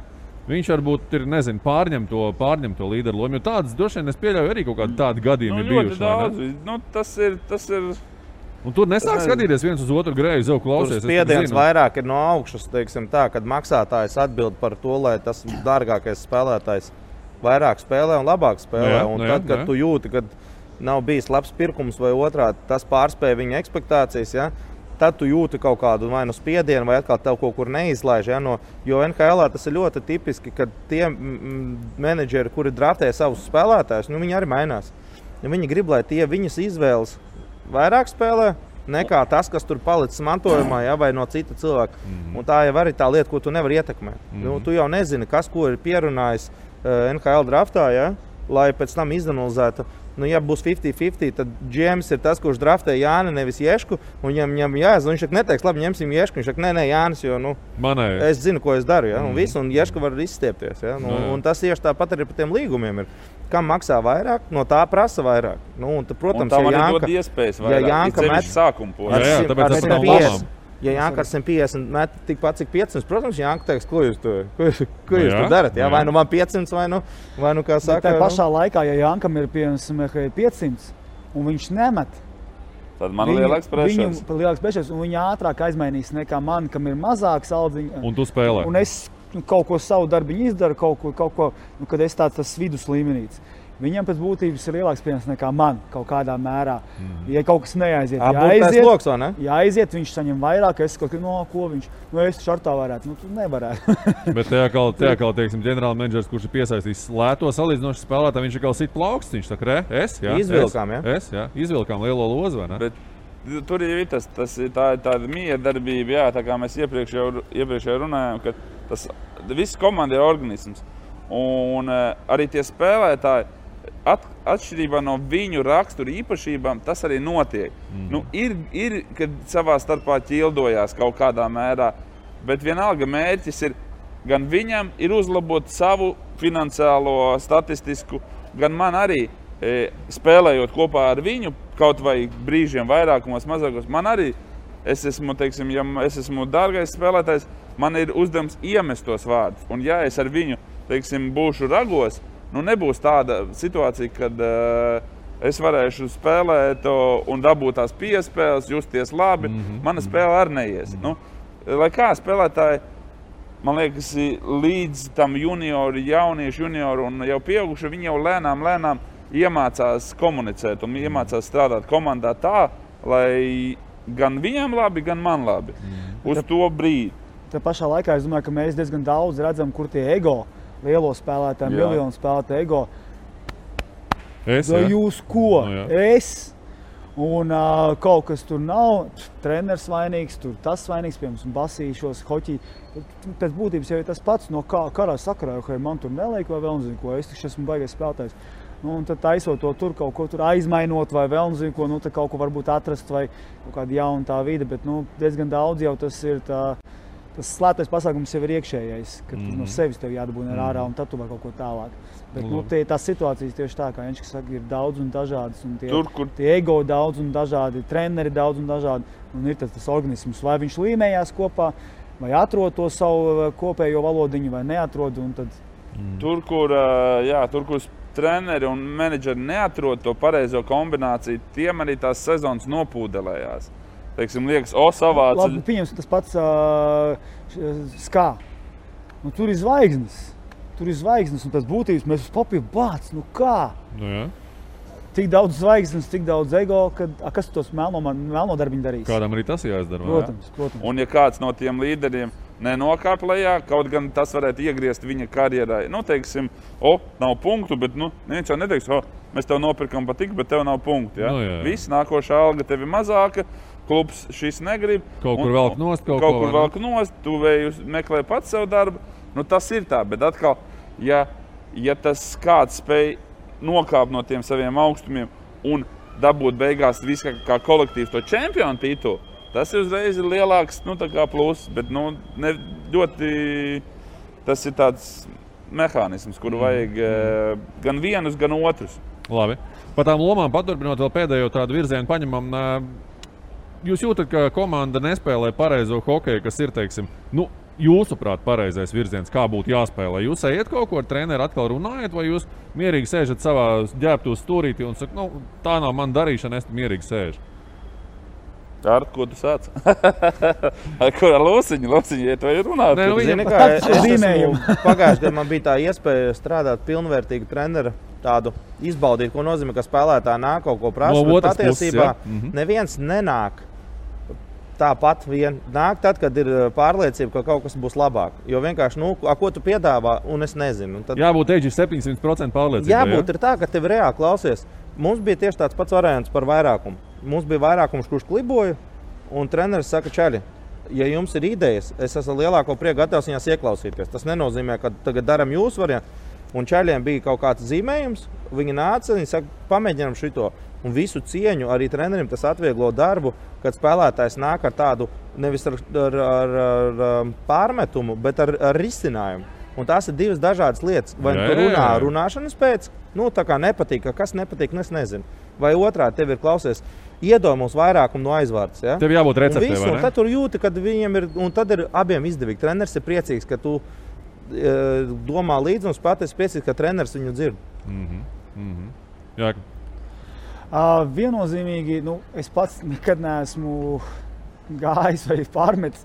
Viņš varbūt ir, pārņem to līderu lomu, jo tādas droši vien es pieļauju arī kaut kādi tādi gadījumi bijuši. Tas ir... Un tur nesāk skatīties viens uz otru greju, klausies. Tur spiediens vairāk ir no augšas, teiksim tā, kad maksātājs atbild par to, lai tas dārgākais spēlētājs vairāk spēlē un labāk spēlē. Kad tu jūti, kad nav bijis labs pirkums vai otrādi, tas pārspēja viņa ekspektācijas, ja? Tad tu jūti kaut kādu vai no spiedienu, vai atkal tev kaut kur neizlaiž. Ja? Jo NHL tas ir ļoti tipiski, ka tie menedžeri, kuri draftē savus spēlētājus, viņi arī mainās. Viņi grib, lai tie viņas izvēles vairāk spēlē, nekā tas, kas tur palicis mantojumā, ja? Vai no cita cilvēka. Un tā jau arī tā lieta, ko tu nevari ietekmēt. Tu jau nezini, kas ko ir pierunājis NHL draftā, ja? Lai pēc tam izanalizētu. Ja būs 50-50, tad GMs ir tas, kurš draftē Jāni, nevis Ješku. Un viņam jāzina, viņš neteiks, labi, ņemsim Ješku. Viņš saka, nē, Jānis, jo es zinu, ko es daru. Ja? Un Ješka var izstiepties. Ja? Un tas tieši tāpat arī par tiem līgumiem ir. Kam maksā vairāk, no tā prasa vairāk. Protams, un tam arī dod iespējas vairāk. Ja met sākumu posmā. Tāpēc tas nav labām. Ja Jānka ar 150 met tikpat cik 500, protams, Jānka teiks, ko jūs tur darat. Ja? Vai man 500, vai kā saka. Tā pašā laikā, ja Jānkam ir 500 un viņš nemet, tad man ir lielāks pressures, un viņi ātrāk aizmainīs nekā man, kam ir mazāks aldziņš. Un tu spēlē. Un es kaut ko savu darbiņu izdaru, kaut ko, kad es tāds vidus līmenīts. Viņam pēc būtības ir lielāks pienākums nekā man kaut kādā mērā. Ja kaut kas neaiziet, jāaiziet, viņš saņem vairāk, es kaut ko viņš, es šartā varētu, tu nevarētu. Bet tajā kā, teiksim, ģenerāla menedžers, kurš ir piesaistījis lēto salīdzinošu spēlētāju, viņš ir kā sit plauksts, viņš saka, izvilkām, izvilkām lielo lozu, vai ne? Bet tur ir tāda miedarbība, tā kā mēs iepriekš runājām, ka tas viss komanda ir organisms. Un arī tie spēlētāji, atšķirībā no viņu rakstura īpašībām, tas arī notiek. Ir, kad savā starpā ķildojās kaut kādā mērā, bet vienalga mērķis ir, gan viņam ir uzlabot savu finansiālo, statistisku, gan man arī. spēlējot kopā ar viņu, kaut vai brīžiem vairākumos, mazākos, man arī, es esmu, teiksim, ja es esmu dārgais spēlētājs, man ir uzdevums iemest tos vārdus. Un ja es ar viņu, teiksim, būšu ragos, nebūs tāda situācija, kad es varēšu spēlēt un dabūt tās piespēles, justies labi. Mana spēle arī neies. Lai kā spēlētāji, man liekas, līdz tam jauniešu junioru un jau pieauguši, viņi jau lēnām iemācās komunicēt un iemācās strādāt komandā tā, lai gan viņam labi, gan man labi. Uz to brīdi. Tā pašā laikā es domāju, ka mēs diezgan daudz redzam, kur tie ego, lielo spēlētāji, miljonu spēlētāji ego. Jūs ko? Es. Un kaut kas tur nav, treneris vainīgs, tur tas vainīgs, piemēram, basīšos, hoķī. Pēc būtības jau ir tas pats no karā sakarā, ka man tur neliek vai vēl nezinu ko, es taču esmu baigais spēlētājs. Un tad taisot to tur, kaut ko tur aizmainot vai vēl nezinu ko, tad kaut ko varbūt atrast vai kaut kāda jauna tā vide, bet diezgan daudz jau tas ir tas slēptais pasākums jau ir iekšējais, ka no sevis tev jādabūna ārā un tad tu var kaut ko tālāk. Bet tās situācijas tieši tā, kā Jenčs saka, ir daudz un dažādas, un tie ego daudz un dažādi, treneri daudz un dažādi, un ir tas organisms, vai viņš līmējās kopā, vai atrod to savu kopējo valodiņu, vai neatrod, un tad... Tur, kur treneri un menedžeri neatrod to pareizo kombināciju, tiem arī tās sezonas nopūdelējās. Teiksim, liekas, savāca... Labi, pieņems tas pats skā. Tur ir zvaigznes. Un pēc būtības mēs uz papīru bāc, kā? Tik daudz zvaigznes, tik daudz ego, kas tos melno darbiņu darīs? Kādam arī tas jāizdara. Protams. Un ja kāds no tiem līderiem nenokāp lejā, kaut gan tas varētu iegriezt viņa karjerai. Teiksim, nav punktu, bet neviens jau neteiks, mēs tev nopirkam patik, bet tev nav punktu. Ja? Viss, nākošā alga tev ir mazāka, klubs šis negrib. Kaut kur velk nost, tu vējus meklē pats savu darbu. Tas ir tā, bet atkal, ja tas kāds spēj nokāpt no tiem saviem augstumiem un dabūt beigās visu kā kolektīvs to čempionu titulu, tas ir uzreiz lielāks pluss, bet ļoti tas ir tāds mehānisms, kuru vajag gan vienus, gan otrus. Labi. Par tām lomām paturpinot vēl pēdējo tādu virzienu paņemam. Jūs jūtat, ka komanda nespēlē pareizo hokeju, kas ir, teiksim, jūsuprāt, pareizais virziens, kā būtu jāspēlē? Jūs ejat kaut ko ar treneri atkal runājat, vai jūs mierīgi sēžat savā ģērbtuvs stūrītī un saka, tā nav man darīšana, es mierīgi sēžu? Ar ko tu sāc? Ar ko ar Lūsiņu, ja tu runāt? Zini kā, pagājušajā gadā man bija tā iespēja strādāt pilnvērtīgu treneru, tādu izbaudīt, ko nozīmē, ka spēlētāji nāk kaut ko prasa, bet patiesībā neviens nenāk. Tāpat vien nāk tad, kad ir pārliecība, ka kaut kas būs labāk. Jo vienkārši, ko tu piedāvā, un es nezinu. Tad... Jābūt 700% pārliecībai. Jābūt ir tā, ka tev reāli klausies. Mums bija tieši tāds pats variants par vairākumu. Mums bija vairākums, kurš kliboja, un treneris saka, čaļi, ja jums ir idejas, es esmu lielāko prieku gatavs viņās ieklausīties. Tas nenozīmē, ka tagad daram jūsu variantu. Un čaļiem bija kaut kāds zīmējums, viņi nāca, viņi saka, pamēģinām šito. Un visu cieņu arī trenerim tas atvieglo darbu, kad spēlētājs nāk ar tādu nevis ar pārmetumu, bet ar risinājumu. Un tās ir divas dažādas lietas. Vai tu runā runāšanas pēc, tā kā nepatīk, kas nepatīk, es nezinu. Vai otrādi tev ir klausies, iedod mums vairākumu no aizvārds. Ja? Tev jābūt receptē, vai ne? Un tad tur jūti, kad viņiem ir, un tad ir abiem izdevīgi. Treneris ir priecīgs, ka tu domā līdzi, un spēlētājs ir priecīgs, ka treneris viņu dzird. Jā. Viennozīmīgi, es pats nekad neesmu gājis vai pārmetis.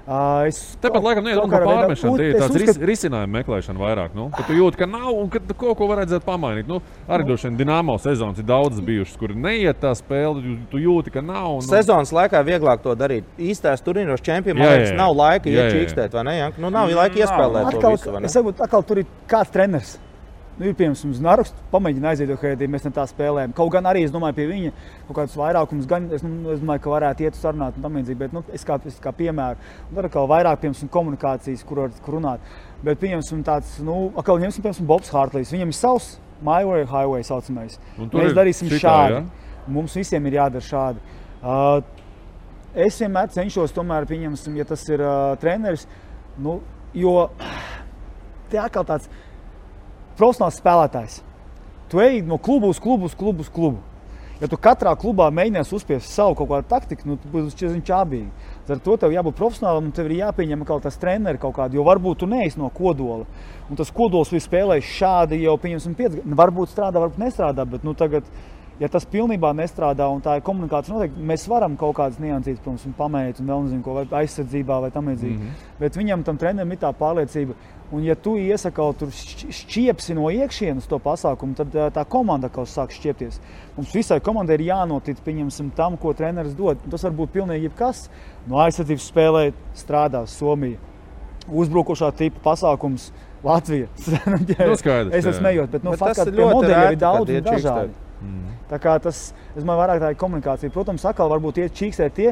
Tāpat laikam neiet par pārmešanu, tie ir tāds risinājuma meklēšana vairāk. Kad tu jūti, ka nav un kad kaut ko varētu pamainīt. Arī droši vien Dinamo sezonas ir daudzas bijušas, kur neiet tā spēle, tu jūti, ka nav. Sezonas laikā vieglāk to darīt. Īstās turnīros čempioniem nav laika iečīkstēt, vai ne? Nav laika iespēlēt to visu, vai ne? Es saprotu, atkal tur ir kāds treneris. Ir piemēram Znaruks, pamēģina aiziet, ka mēs ne tā spēlējam. Kaut gan arī, es domāju, pie viņa kaut kādus vairākumus, gan es domāju, ka varētu iet sarunāt un tam līdzīgi, bet es kā piemēru. Un tad atkal vairāk, piemēram, komunikācijas, kur runāt. Bet, piemēram, tāds, atkal ņemsim, piemēram, Bobs Hartlīs. Viņam ir savs my way, highway saucamais. Mēs darīsim šādi. Ja? Mums visiem ir jādara šādi. Es vienmēr cenšos, tomēr, pieņemsim, ja tas ir treneris, jo te atkal tāds profesionāls spēlētājs. tu ej no klubu uz klubu. Ja tu katrā klubā mēģinies uzspiest savu kaut kādu taktiku, nu, tu būs čābīgi. Ar to tev jābūt profesionālam un tev ir jāpieņem kaut tas treneri kaut kādu, jo varbūt tu neesi no kodola. Un tas kodols ir spēlējis šādi jau, pieņemsim, 5 gadu. Varbūt strādā, varbūt nestrādā, bet nu tagad, ja tas pilnībā nestrādā un tā ir komunikācija noteikti, mēs varam kaut kādas niansītas, protams, un pamēģināt un vēl nezinu ko, vai aizsardzībā vai tam līdzīgi. Bet viņam tam trenerim ir tā pārliecība. Un ja tu iesaka kaut tur šķiepsi no iekšienes to pasākumu, tad tā komanda kaut sāk šķiepties. Mums visai komandai ir jānotic, pieņemsim, tam, ko treneris dod. Tas var būt pilnīgi jebkas. No aizsardzības spēlē strādās Somija. Uzbrukošā tipa pasākums Latvija. Skaidrs, es esmu smējot, bet faktiski pie modeļiem ir daudz un dažādi. Tā kā tas, es domāju, vairāk tā ir komunikācija. Protams, atkal varbūt iet čīkstē tie,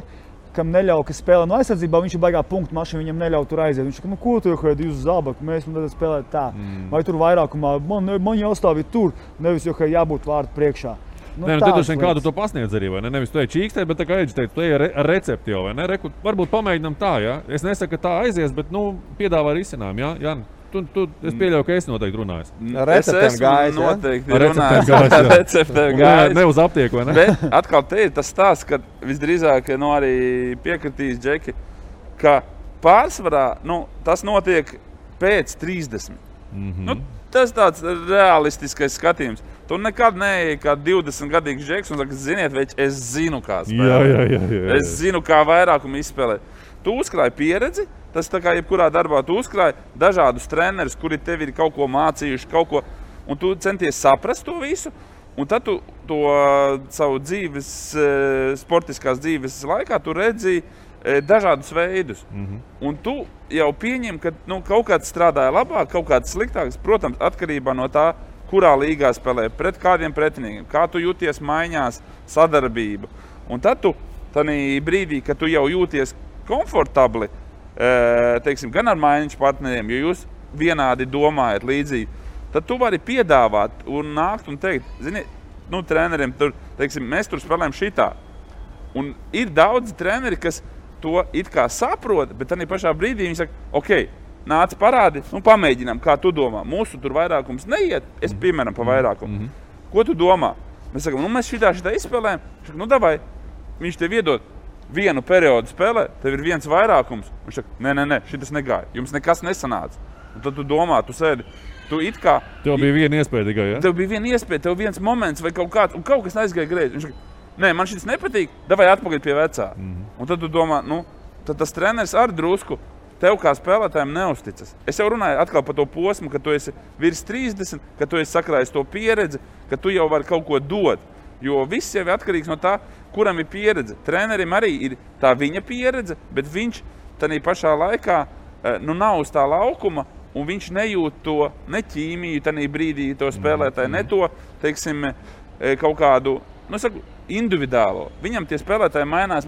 kam neļauj, kas spēlē no aizsardzībā, viņš ir baigā punktu mašīnu, viņam neļauj tur aiziet. Viņš saka, nu ko tu jau jūs zabaku, mēs spēlēt tā. Vai tur vairākumā, man jāstāvīt tur, nevis jau jābūt vārdu priekšā. Nu, tu droši vien kādu to pasniedz arī, vai ne? Nevis tu ej čīkstēt, bet tā kā Eģis teica, tu ej ar recepti jau, vai ne? Varbūt pamēģinām tā, ja? Es nesaku, ka tā aizies, bet, nu, piedāvā risinājumu, ja? Jāni, es pieļauju, ka es noteikti runāju. Receptēm gājis, noteikti runāju. Receptēm gājis. Ne uz aptieku, vai ne? Bet atkal te ir tas stāsts, ka visdrīzāk, nu, arī piekritīs Džeki, ka pārsvarā, nu, tas notiek pēc 30. Nu, tas tāds realistiskais skatījums. Tu nekad neej kā 20-gadīgs Džeks un saka, ziniet, veči, es zinu, kā spēlēt. Jā. Es zinu, kā vairākumu izspēlēt. Tu uzkrāji pieredzi, tas tā kā jebkurā darbā tu uzkrāji dažādus trenerus, kuri tev ir kaut ko mācījuši, kaut ko, un tu centies saprast to visu, un tad tu to savu dzīves, sportiskās dzīves laikā tu redzi dažādus veidus. Un tu jau pieņem, ka nu, kaut kāds strādāja labāk, kaut kāds sliktāks, protams, atkarībā no tā, kurā līgā spēlē, pret kādiem pretiniekiem, kā tu jūties maiņās, sadarbība. Un tad tu, tanī brīdī, kad tu jau jūties komfortabli, teiksim, gan ar maiņas partneriem, jo jūs vienādi domājat līdzīgi, tad tu vari piedāvāt un nākt un teikt, zini, nu, treneriem, tur, teiksim, mēs tur spēlējam šitā. Un ir daudzi treneri, kas to it kā saprot, bet tanī pašā brīdī viņi saka, ok, nāc parādi, nu, pamēģinām, kā tu domā. Mūsu tur vairākums neiet, es piemēram pa vairākumu. Ko tu domā? Mēs sakam, nu, mēs šitā izspēlējam. Saka, nu, davai, viņš tev iedod vienu periodu spēlē, tev ir viens vairākums. Viņš saka, nē, šitas negāja, jums nekas nesanāca. Un tad tu domā, tu sēdi, tu it kā... Tev bija viena iespēja tikai, ja? Tev bija viena iespēja, tev viens moments vai kaut kāds, un kaut kas aizgāja greizi. Viņš saka, nē, man šitas nepatīk, davai atpakaļ pie vecā. Un tad tu domā, nu, tad tas treneris ar drusku tev kā spēlētājiem neusticas. Es jau runāju atkal par to posmu, ka tu esi virs 30, ka tu esi sakrājis to pieredzi, ka tu jau vari kaut ko dot. Jo viss jau ir atkarīgs no tā, kuram ir pieredze. Trenerim arī ir tā viņa pieredze, bet viņš tādā pašā laikā nu, nav uz tā laukuma, un viņš nejūt to ne ķīmiju tādā brīdī, to spēlētāju, ne to, teiksim, kaut kādu, nu, saku, individuālo. Viņam tie spēlētāji mainās,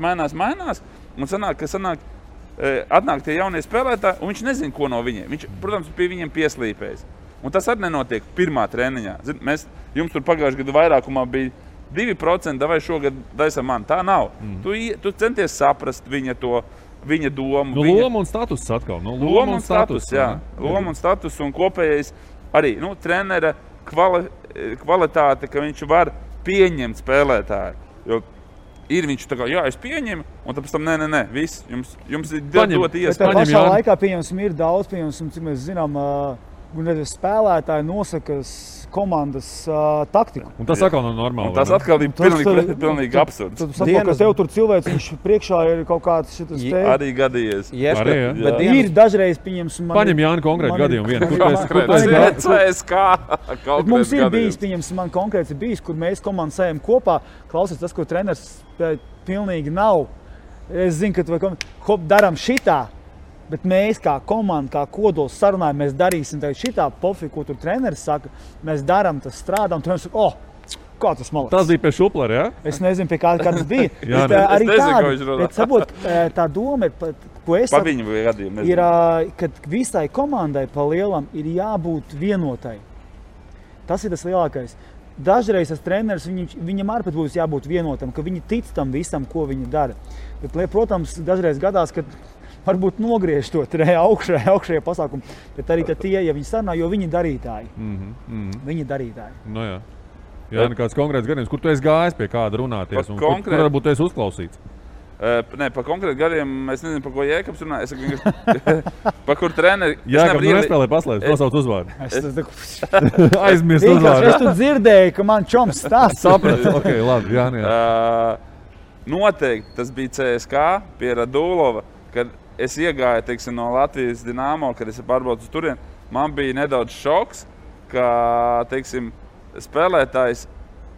un atnāk tie jaunie spēlētāji, un viņš nezina, ko no viņiem. Viņš, protams, pie viņiem pieslīpējas. Un tas arī nenotiek pirmā treniņā. Jums tur pagājušajā gadu vairākumā bija 2%, vai šogad daisam man. Tā nav. Tu centies saprast viņa domu. Nu, loma un status atkal. Nu, loma un status, jā. Loma un status un kopējais arī, nu, trenera kvalitāte, ka viņš var pieņemt spēlētāju. Jo ir viņš tā kā, jā, es pieņemu, un tad pēc tam, nē, viss, jums ir dot iespēju. Bet tā pašā laikā, pieņemsim, ir daudz, cik mēs zinām, spēlētāji nosaka komandas taktiku. Un tas atkal nav normāli. Un tas atkal ir pilnīgi absurds. Tad saprot, ka tev tur cilvēks, viņš priekšā ir kaut kāds šitas te... Arī gadījies. Bet ir dažreiz, pieņemsim... Paņem Jāni konkrētu gadījumu vienu. Bet mums ir bijis, pieņemsim, man konkrēts ir bijis, kur mēs komandu sējam kopā. Klausies, tas, ko treneris pilnīgi nav. Es zinu, ka daram šitā. Bet mēs kā komanda, kā kodols sarunājam, mēs darīsim šitā pofi, ko tur treneris saka. Mēs darām, tas strādā, un treneris saka, kā tas malaks. Tas bija pie Šuplera, jā? Es nezinu, pie kā tas bija. Jā, arī tāda, bet sabot, tā doma ir, ko es saku, ir, kad visai komandai pa lielam ir jābūt vienotai. Tas ir tas lielākais. Dažreiz tas treneris, viņam arī pat būs jābūt vienotam, ka viņi tic tam visam, ko viņi dara. Bet, protams, dažreiz gadās, kad varbūt nogriež to augšējā pasākumu, bet arī tie, ja viņi sarunā, jo viņi darītāji. Viņi darītāji. No jā. Jā, kāds konkrēts gadījums, kur tu esi gājis pie kāda runāties un kur varbūt esi uzklausīts? Nē, par konkrētu gadiem es nezinu, par ko Jēkabs runā. Es par kur treneri... Jēkabs nespēlē paslēdz, nosauc uzvārdu. Aizmirst uzvārdu. Es tu dzirdēju, ka man čoms stāsts. Sapratu, ok, labi, jā. Noteikti tas bija CSK pie Radulova, kad es iegāju, teiksim, no Latvijas Dinamo, kad es pārbraucu uz turieni. Man bija nedaudz šoks, ka, teiksim, spēlētājs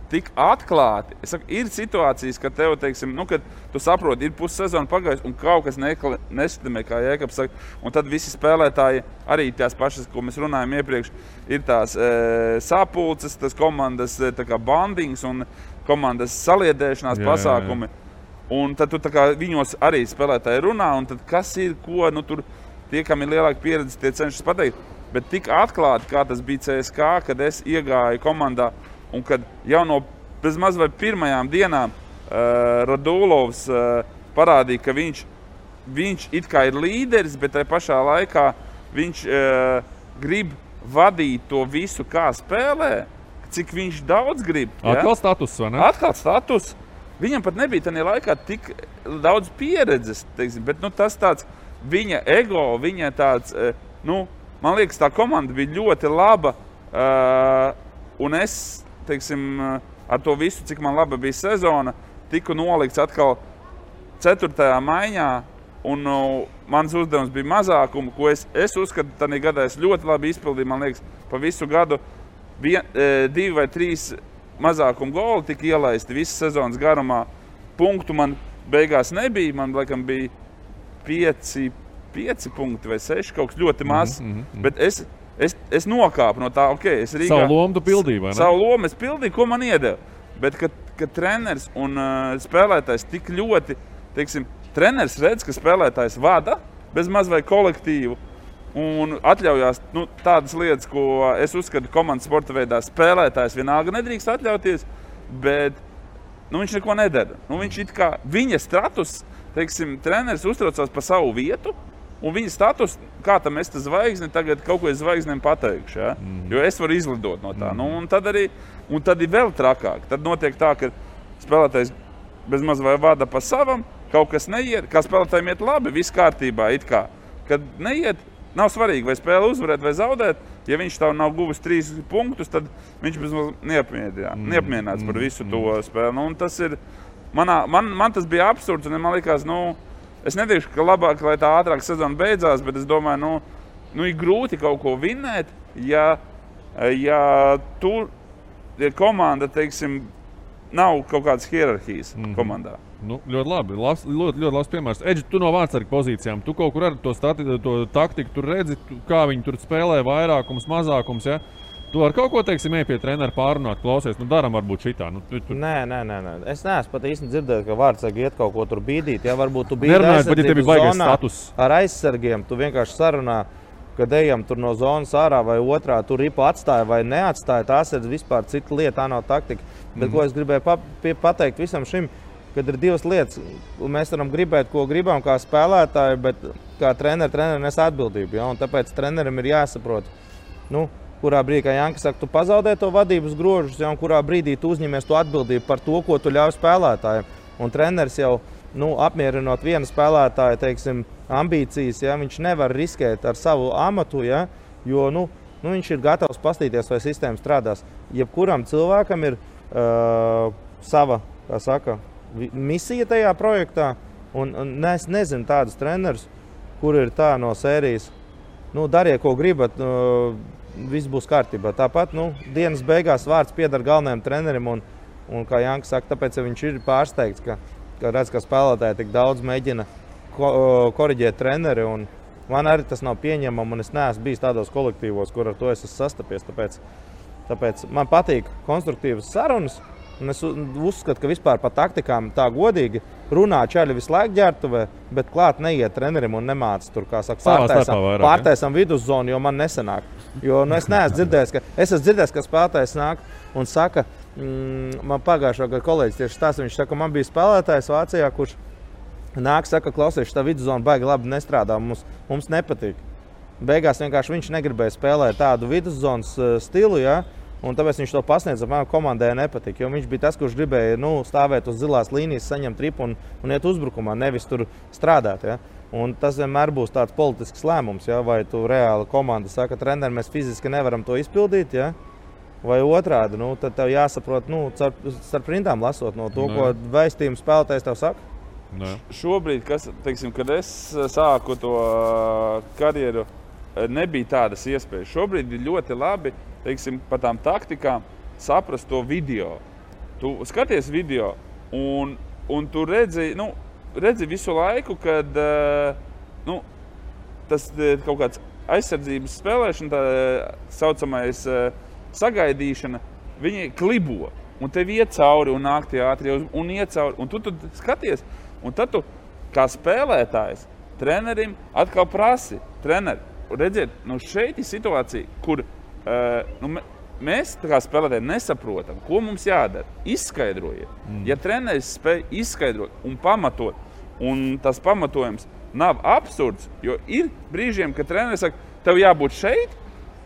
tik atklāti. Es saku, ir situācijas, kad tev, teiksim, kad tu saproti, ir pussezona pagājus un kaut kas nestimē, kā Jēkabs saka. Un tad visi spēlētāji, arī tās pašas, ko mēs runājam iepriekš, ir tās sapulces, tas komandas tā kā bandings un komandas saliedēšanās pasākumi. Un tad tu tā kā viņos arī spēlētāji runā, un tad kas ir, ko, tur tie, kam ir lielāka pieredze, tie cenšas pateikt. Bet tik atklāti, kā tas bija CSK, kad es iegāju komandā un kad jau no bezmaz vai pirmajām dienām Radulovs parādīja, ka viņš it kā ir līderis, bet tajā pašā laikā viņš grib vadīt to visu, kā spēlē, cik viņš daudz grib. Atkal status, vai ne? Atkal status. Viņam pat nebija tajā laikā tik daudz pieredzes, teiksim, bet tas tāds viņa ego, viņa tāds, man liekas, tā komanda bija ļoti laba, un es, teiksim, ar to visu, cik man laba bija sezona, tiku nolikts atkal 4. maiņā, un mans uzdevums bija mazākumu, ko es uzskatu, tādā gadā es ļoti labi izpildīju, man liekas, pa visu gadu 2 vai 3 mazākumu goli tika ielaisti visas sezonas garumā. Punktu man beigās nebija, man laikam bija 5 punkti vai 6, kaut kas ļoti maz, bet es nokāpu no tā, es Rīgā... Savu lomu tu pildīji, vai ne? Savu lomu es pildīju, ko man iedeva. Bet, kad treneris un spēlētājs tik ļoti, teiksim, treneris redz, ka spēlētājs vada bez maz vai kolektīvu un atļaujās tādas lietas, ko es uzskatu komandas sporta veidā spēlētājs vienalga nedrīkst atļauties, bet viņš neko nedara. Viņš it kā viņa status, teiksim, treneris uztraucās par savu vietu, un viņa status, kā tam es zvaigzni, tagad kaut ko es zvaigznēm pateikšu, ja? Jo es varu izlidot no tā. Un tad ir vēl trakāk. Tad notiek tā, ka spēlētājs bez maz vai vada pa savam, kaut kas neiet, kā spēlētājiem iet labi, viss kārtībā, it kā. Kad neiet, nav svarīgi, vai spēle uzvarēt vai zaudēt, ja viņš tā nav guvis 3 punktus, tad viņš bez maz neapmienāts par visu to spēli. Un tas ir, man tas bija absurds, un man likās, es neteikšu, ka labāk, lai tā ātrāk sezona beidzās, bet es domāju, ir grūti kaut ko vinnēt, ja komanda, teiksim, nav kaut kādas hierarhijas komandā. Ļoti labi. Ļoti labs piemērs. Edži, tu no vārdsarga pozīcijām, tu kaut kur ar to taktiku tur redzi, kā viņi tur spēlē vairākums, mazākums, ja? Tu ar kaut ko, teiksim, pie trenera pārunāt, klausies, daram varbūt šitā. Nē. Es neesmu pat īsti dzirdējis, ka vārdsargi iet kaut ko tur bīdīt. Ja varbūt tu bīdi aizsardzības zonā ar aizsargiem, tu vienkārši sarunā, kad ejam tur no zonas ārā vai otrā, tur ripu atstāja vai neatstāja. Tās ir vispār cita lieta, tā nav taktika. Bet ko es gribēju pateikt visam šim, kad ir 2 lietas. Mēs varam gribēt, ko gribam kā spēlētāji, bet kā treneri nes atbildību. Ja? Un tāpēc trenerim ir jāsaprot, kurā brīdī, kā Janka saka, tu pazaudē to vadības grožus, ja, un kurā brīdī tu uzņemies to atbildību par to, ko tu ļauj spēlētājiem. Un treneris jau, apmierinot vienu spēlētāju, teiksim, ambīcijas, ja, viņš nevar riskēt ar savu amatu, ja, jo, viņš ir gatavs pastīties, vai sistēma strādās. Jebkuram cilvēkam ir sava, kā saka, misija tajā projektā, un es nezinu tādus trenerus, kur ir tā no sērijas, dariet, ko gribat, viss būs kārtībā. Tāpat, dienas beigās vārds pieder galvenajam trenerim, un kā Janka saka, tāpēc viņš ir pārsteigts, ka redz, ka spēlētāji tik daudz mēģina koriģēt treneri, un man arī tas nav pieņemama, un es neesmu bijis tādos kolektīvos, kur ar to es esmu sastapies, tāpēc man patīk konstruktīvas sarunas, un es uzskatu, ka vispār pa taktikām tā godīgi runā čaļi visu laiku ģērbtuvē, bet klāt neiet trenerim un nemāca tur, kā saka, pārtaisam viduszonu, jo man nesanāk. Jo es neesmu dzirdējis, ka spēlētājs nāk un saka, man pagājušā gada kolēģis tieši stāsta, viņš saka, man bija spēlētājs Vācijā, kurš nāk, saka, klausies, tā viduszona baigi labi nestrādā, mums nepatīk. Beigās vienkārši viņš negribēja spēlēt tādu viduszonas stilu, ja, Un tāpēc viņš to pasniedz, man komandai nepatika, jo viņš bija tas, kurš gribēja stāvēt uz zilās līnijas, saņemt tripu un iet uzbrukumā, nevis tur strādāt. Ja? Un tas vienmēr būs tāds politisks lēmums, ja? Vai tu reāli komanda saka, treneri, mēs fiziski nevaram to izpildīt, ja? Vai otrādi, tad tev jāsaprot, starp rindām lasot no to, ko vēstījumu spēlētājs tev saka. Šobrīd, kad es sāku to karjeru, nebija tādas iespējas. Šobrīd ir ļoti labi, par tām taktikām saprast to video. Tu skaties video un tu redzi visu laiku, kad tas kaut kāds aizsardzības spēlēšana, tā saucamais sagaidīšana, viņi klibo. Un tev iet cauri un nāk tie ātri un iet cauri. Un tu skaties, un tad tu kā spēlētājs trenerim atkal prasi. Treneri, redziet, šeit ir situācija, kur mēs kā spēlētāji nesaprotam, ko mums jādara. Izskaidrojiet. Ja treneris spēj izskaidrot un pamatot, un tas pamatojums nav absurds, jo ir brīžiem, kad treneris saka, tev jābūt šeit,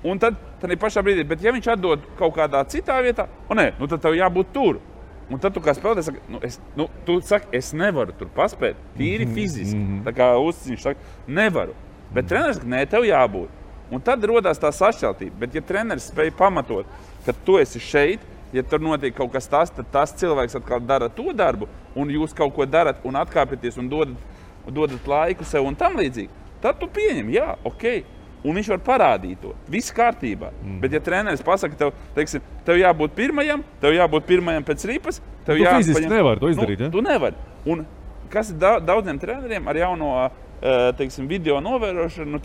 un tad pašā brīdī, bet ja viņš atdod kaut kādā citā vietā, tad tev jābūt tur. Un tad tu kā spēlētājs saka, tu saki, es nevaru tur paspēt, tīri fiziski. Tā kā Uzciņš saka, nevaru. Bet treneris saka, nē, tev jābūt. Un tad rodās tā sašķeltība. Bet ja treneris spēj pamatot, ka tu esi šeit, ja tur notiek kaut kas tas, tad tas cilvēks atkal dara to darbu, un jūs kaut ko darat un atkāpieties un dodat laiku sev un tam līdzīgi, tad tu pieņem, jā, okei. Un viņš var parādīt to. Viss kārtībā. Bet ja treneris pasaka, tev jābūt pirmajam pēc ripas, tu fiziski nevari to izdarīt, ja? Tu nevari. Un kas ir daudziem treneriem ar jauno video novērošanu,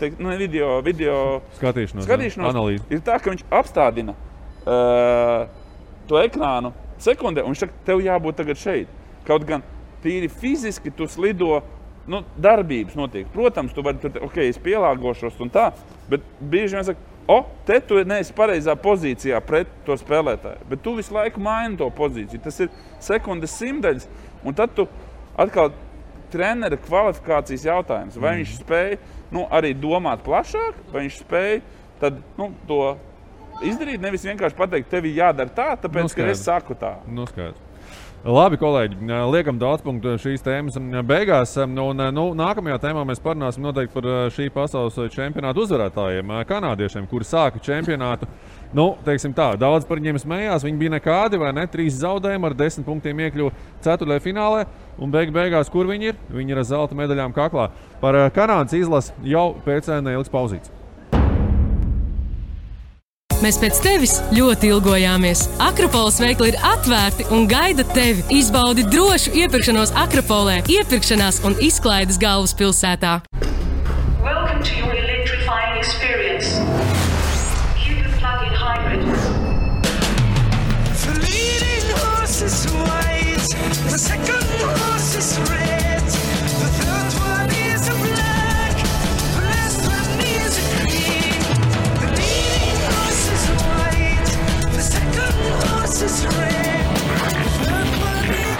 video skatīšanos analīzi. Ir tā, ka viņš apstādina to ekrānu sekundē, un viņš saka, tev jābūt tagad šeit. Kaut gan tīri fiziski tu slido, darbības notiek. Protams, tu vari tur, es pielāgošos un tā, bet bieži vien saka, te tu neesi pareizā pozīcijā pret to spēlētāju, bet tu visu laiku maini to pozīciju. Tas ir sekundes simtaļas, un tad tu atkal trenera kvalifikācijas jautājums. Vai viņš spēj arī domāt plašāk, vai viņš spēj tad, to izdarīt, nevis vienkārši pateikt, tev ir jādara tā, tāpēc, ka es saku tā. Skaidrs. Labi, kolēģi, liekam daudz punktu šīs tēmas beigās. Nākamajā tēmā mēs parunāsim noteikti par šī pasaules čempionāta uzvarētājiem, kanādiešiem, kuri sāka čempionātu. Daudz par viņiem smējās, viņi bija nekādi, vai ne? 3 zaudējumi ar 10 punktiem iekļuva ceturtajā finālē, un beigās, kur viņi ir? Viņi ir ar zelta medaļām kaklā. Par Kanādas izlasi jau pēc neilgas pauzītes. Mēs pēc tevis ļoti ilgojāmies. Akropoles veikli ir atvērti un gaida tevi. Izbaudi drošu iepirkšanos Akropolē, iepirkšanās un izklaides galvaspilsētā. Welcome to your electrifying experience. Hidden plug-in hybrid. The leading horse is white, the second horse is red, the third one is a black, the last one is a green. The leading horse is white, the second horse is red, the third one is...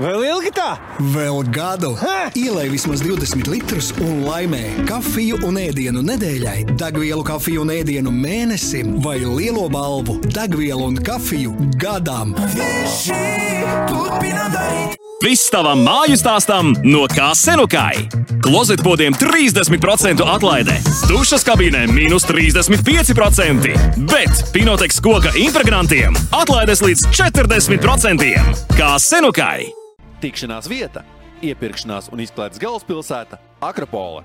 Vēl ilgi tā? Vēl gadu. Ielej vismaz 20 litrus un laimē kafiju un ēdienu nedēļai, degvielu kafiju un ēdienu mēnesim vai lielo balvu degvielu un kafiju gadam. Viss tavam māju stāstam no Kā-Senukai. Klozetpodiem 30% atlaide, dušas kabīnē -35%, bet Pinoteks koka impregnantiem atlaides līdz 40%. Kā-Senukai. Tikšanās vieta, iepirkšanās un izklaides galvaspilsēta Akropole.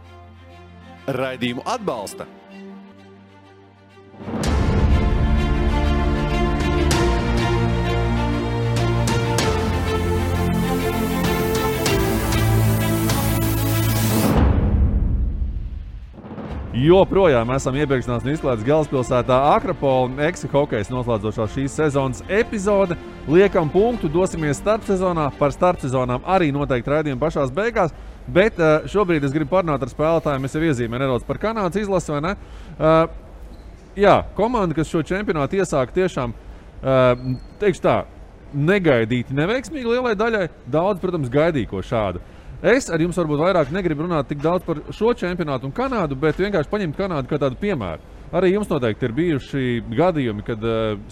Raidījumu atbalsta joprojām esam iepirkšanās un izklaides galvaspilsētā Akropola. Eksi hokejs noslēdzošā šīs sezonas epizode. Liekam punktu, dosimies starpsezonā. Par starpsezonām arī noteikti raidījumi pašās beigās. Bet šobrīd es gribu parunāt ar spēlētājiem. Es jau iezīmēju nedaudz par Kanādas izlasi, vai ne? Jā, komanda, kas šo čempionātu iesāka tiešām, teikšu tā, negaidīti neveiksmīgi lielai daļai. Daudz, protams, gaidīja ko šādu. Es ar jums varbūt vairāk negribu runāt tik daudz par šo čempionātu un Kanādu, bet vienkārši paņemt Kanādu kā tādu piemēru. Arī jums noteikti ir bijuši gadījumi, kad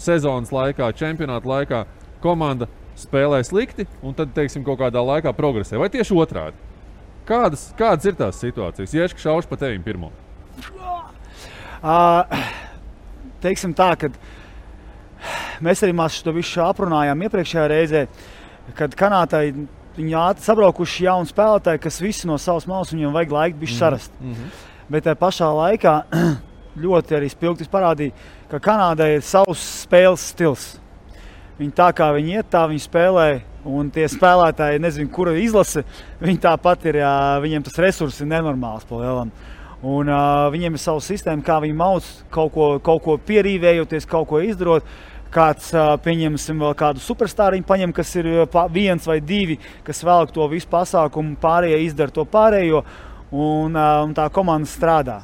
sezonas laikā, čempionāta laikā komanda spēlē slikti un tad, teiksim, kaut kādā laikā progresē. Vai tieši otrādi? Kādas ir tās situācijas? Ieška šaušu pa tevim pirmo. Teiksim tā, kad mēs arī to visu aprunājām iepriekšējā reizē, kad Kanādai viņi sabraukuši jauni spēlētāji, kas visi no savas malas viņiem vajag laiku bišķi sarast. Bet tajā pašā laikā ļoti arī spilgti parādīja, ka Kanādai ir savs spēles stils. Viņi tā kā viņi iet, tā viņi spēlē, un tie spēlētāji, nezinu, kura izlase, viņi tāpat ir, viņiem tas resurss ir nenormāls pa lielam. Un viņiem ir savu sistēmu, kā viņi mauc, kaut ko pierīvējoties, kaut ko izdarot. Kāds, pieņemsim, vēl kādu superstāriņu paņem, kas ir viens vai divi, kas velk to visu pasākumu, pārējie izdara to pārējo, un tā komanda strādā.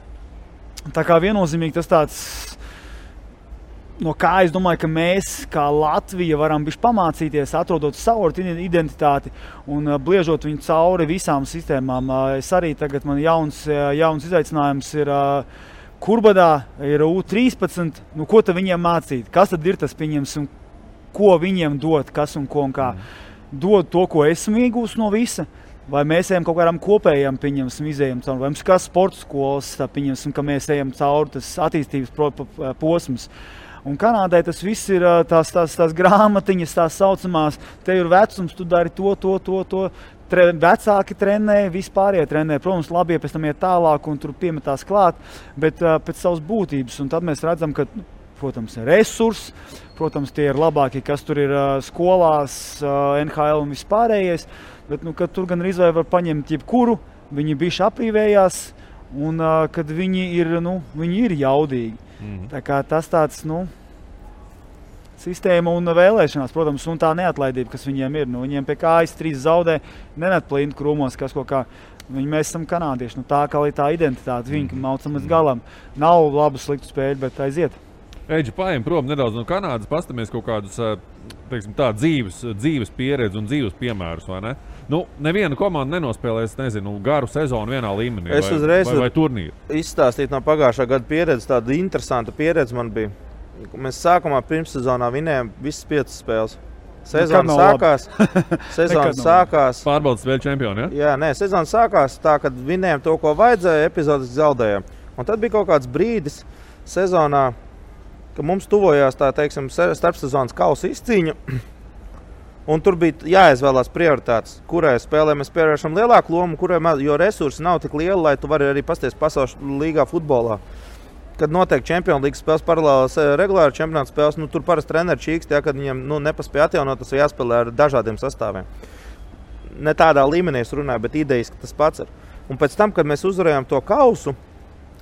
Tā kā viennozīmīgi tas tāds, no kā es domāju, ka mēs, kā Latvija, varam bišķi pamācīties, atrodot savu identitāti un bliežot viņu cauri visām sistēmām. Es arī tagad, man jauns izaicinājums ir Kurbadā, ir U13, nu ko tad viņiem mācīt? Kas tad ir tas, pieņemsim, ko viņiem dot, kas un ko un kā? Dod to, ko esmu iegūst no visa, vai mēs ejam kaut kādām kopējām, pieņemsim, izējam cauri, vai mums kā sporta skolas, pieņemsim, ka mēs ejam cauri tas attīstības posms. Un Kanādai tas viss ir tās grāmatiņas, tās saucamās, te ir vecums, tu dari to. Vecāki trenē, vispārējie trenē. Protams, labi, ja pēc tam iet tālāk un tur piemetās klāt, bet pēc savas būtības. Un tad mēs redzam, ka, protams, ir resursi, protams, tie ir labākie, kas tur ir skolās, NHL un vispārējais, bet, kad tur gan arī var paņemt jebkuru, viņi bišķi aprīvējās, un kad viņi ir jaudīgi. Tā kā tas tāds, sistēma un vēlēšanās, protams, un tā neatlaidība, kas viņiem ir. Viņiem pie kājas 3 zaudē, nenet plīnti krūmos, kas kaut kā. Mēs esam kanādieši, tā kā tā identitāte, viņi maucam līdz galam. Nav labu sliktu spēļu, bet aiziet. Eģi, paiem prom nedaudz no Kanādas, pastamies kaut kādus, teiksim tā, dzīves pieredzi un dzīves piemērus, vai ne? Neviena komanda nenospēlēs, nezinu, garu sezonu vienā līmenī vai turnīru. Izstāstīt no pagājušā gada pieredzi, tāda interesanta pieredze man bija. Mēs sākumā pirmssezonā vinējām visas 5 spēles. Sezona sākās. Pārbaudas spēļu čempioni, ja? Jā, nē, sezona sākās tā, kad vinējām to, ko vajadzēja, epizodiski zaudējām. Un tad bija kaut kāds brīdis sezonā, ka mums tuvojās tā, teiksim, starpsezonas kausa izcīņa. Un tur bija jāizvēlās prioritātes, kurai spēlē mēs pievēršam lielāku lomu, kurai jo resursi nav tik lieli, lai tu vari arī pasties pasaules līgā futbolā. Kad notiek Champions League spēles paralēlas regulāri čempionāta spēles, tur parasti treneri čīkst, kad viņiem nepaspēja atjaunot, tas jāspēlē ar dažādiem sastāviem. Ne tādā līmenī es runāju, bet idejiski tas pats ir. Un pēc tam, kad mēs uzvarējām to kausu,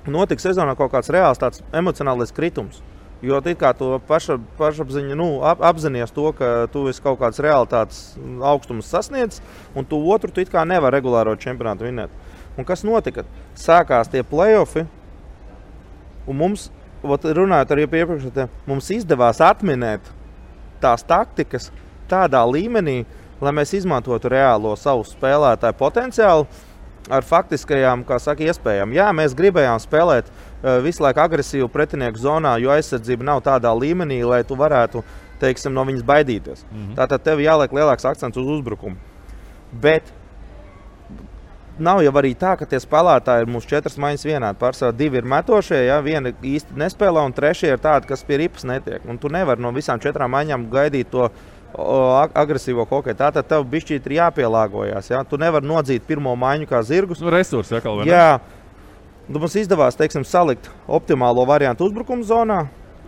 notika sezonā kaut kāds reāls tāds emocionālais kritums. Jo tu kā to pašapziņa, apzinies to, ka tu esi kaut kāds realitātes augstums sasniedz, un tu otru tu kā nevar regulāro čempionātu vinēt. Un kas notika? Sākās tie play-offi, un mums, runājot arī iepriekš, mums izdevās atminēt tās taktikas tādā līmenī, lai mēs izmantotu reālo savu spēlētāju potenciālu ar faktiskajām, kā saka, iespējām. Jā, mēs gribējām spēlēt visu laiku agresīvu pretinieku zonā, jo aizsardzība nav tādā līmenī, lai tu varētu, teiksim, no viņas baidīties. Tātad tev jāliek lielāks akcents uz uzbrukumu. Bet nav jau arī tā, ka tie spēlētāji ir mūsu 4 maiņas vienādi. Pārsvarā 2 ir metošie, viena īsti nespēlē, un 3 ir tādi, kas pie ripas netiek. Un tu nevari no visām 4 maiņām gaidīt to agresīvo hokeju. Tātad tev bišķīt ir jāpielāgojās. Ja? Tu nevari nodzīt pirmo maiņu kā zirgus. Resursi, vai ne? Jā. Mums izdevās, teiksim, salikt optimālo variantu uzbrukuma zonā,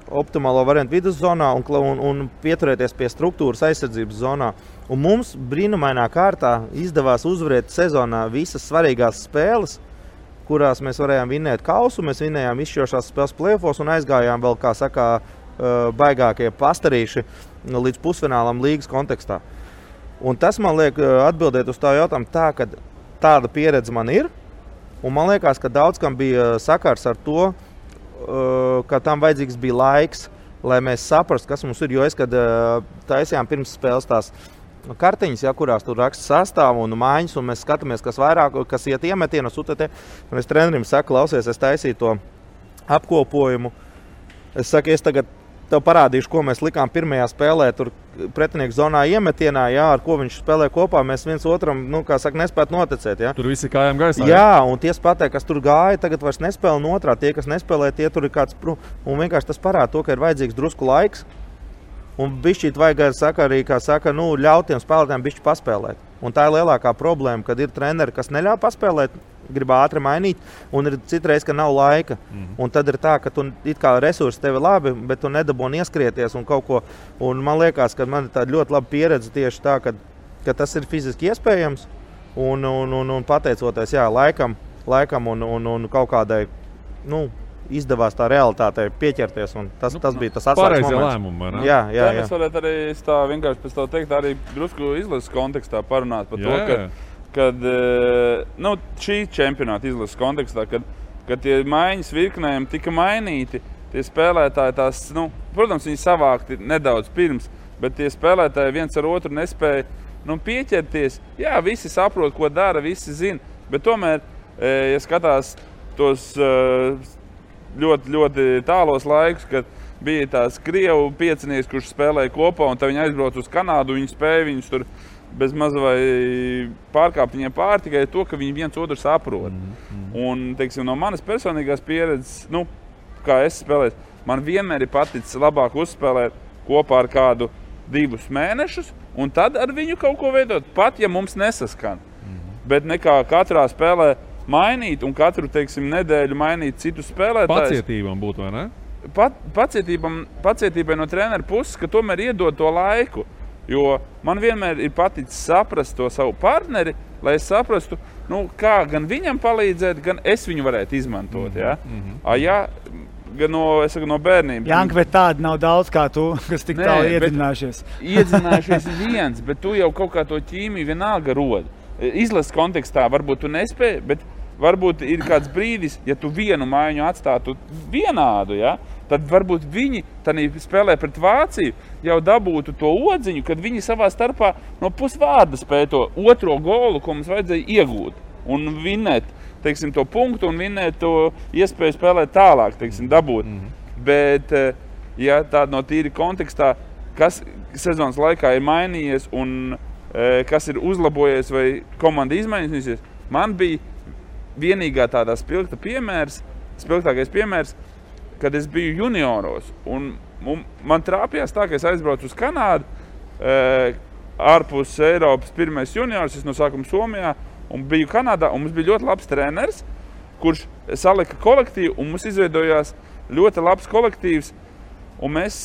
optimālo variantu vidus zonā un pieturēties pie struktūras aizsardzības zonā. Un mums brīnumainā kārtā izdevās uzvarēt sezonā visas svarīgās spēles, kurās mēs varējām vinnēt kausu, mēs vinnējām izšķirošās spēles play-offos un aizgājām vēl, kā saka, baigākie pastarīši līdz pusfinālam līgas kontekstā. Un tas man liek atbildēt uz tā jautājumu tā, ka tāda pieredze man ir, un man liekas, ka daudz kam bija sakars ar to, ka tam vajadzīgs bija laiks, lai mēs saprastu, kas mums ir, jo es, kad taisījām pirms spēles tās kartiņas, ja, kurās tur raksta sastāvu un mājiņas, un mēs skatāmies, kas vairāk, kas iet iemetienus, un es trenerim saku, klausies, es taisīju to apkopojumu. Es saku, es tagad tev parādīšu, ko mēs likām pirmajā spēlē, tur pretinieku zonā iemetienā, jā, ar ko viņš spēlē kopā, mēs viens otram, kā saka, nespētu noticēt, jā. Tur visi kājām gaisā. Jā, un tie spēlē, kas tur gāja, tagad vairs nespēlē no otrā, tie, kas nespēlē, tie tur ir kāds, un vienkārši tas parāda to, ka ir vajadzīgs drusku laiks, un bišķīt vajag arī, kā saka, ļaut tiem spēlētājiem bišķi paspēlēt. Un tā ir lielākā problēma, kad ir treneri, kas neļauj paspēlēt, grib ātri mainīt, un ir citreiz, ka nav laika. Un tad ir tā, ka tu it kā resursi tevi labi, bet tu nedabūni ieskrieties un kaut ko. Un man liekas, ka man ir tāda ļoti laba pieredze tieši tā, ka tas ir fiziski iespējams, un pateicoties, jā, laikam un kaut kādai, izdevās tā realitātei pieķerties, un tas bija tas atslēgas moments. Lēmumi, ne? Jā. Mēs varētu arī tā vienkārši pēc tā teikt, arī drusku izlases kontekstā parunāt par to, kad šī čempionāta izlases kontekstā, kad tie maiņas virknējumi tika mainīti, tie spēlētāji tās, protams, viņi savākti nedaudz pirms, bet tie spēlētāji viens ar otru nespēja pieķerties. Jā, visi saprot, ko dara, visi zina, bet tomēr, ja skatās tos ļoti, ļoti tālos laikus, kad bija tās Krievu piecinieks, kurš spēlēja kopā, un tad viņi aizbrauc uz Kanādu, viņi spēja viņus tur bez maz vai pārkāpt viņiem pāri tikai to, ka viņi viens otru saprot. Un, teiksim, no manas personīgās pieredzes, kā es spēlēju, man vienmēr ir paticis labāk uzspēlēt kopā ar kādu 2 mēnešus, un tad ar viņu kaut ko veidot, pat ja mums nesaskan. Bet nekā katrā spēlē mainīt un katru, teiksim, nedēļu mainīt citu spēlētājus. Pacietībai būtu, vai ne? Pacietībai no trenera puses, ka tomēr iedod to laiku. Jo man vienmēr ir paticis saprast to savu partneri, lai es saprastu, kā gan viņam palīdzēt, gan es viņu varētu izmantot. Gan no bērnības. Janka, bet tāda nav daudz kā tu, kas tik tālu iedzinājušies. Iedzinājušies viens, bet tu jau kaut kā to ķīmiju vienalga rodi. Izlases kontekstā varbūt tu nespēji, bet varbūt ir kāds brīdis, ja tu vienu maiņu atstātu vienādu, tad varbūt viņi spēlē pret Vāciju jau dabūtu to odziņu, kad viņi savā starpā no pusvārda spēja to otro golu, ko mums vajadzēja iegūt un vinnēt, teiksim, to punktu un vinnēt to iespēju spēlēt tālāk, teiksim, dabūt. Bet, ja tāda no tīri kontekstā, kas sezonas laikā ir mainījies un kas ir uzlabojies vai komanda izmainīsies, man bija vienīgā tādā spilgtākais piemērs, kad es biju junioros. Un man trāpījās tā, ka es aizbraucu uz Kanādu, ārpus Eiropas pirmais juniors, es no sākuma Somijā, un biju Kanādā, un mums bija ļoti labs treneris, kurš salika kolektīvu, un mums izveidojās ļoti labs kolektīvs. Un mēs,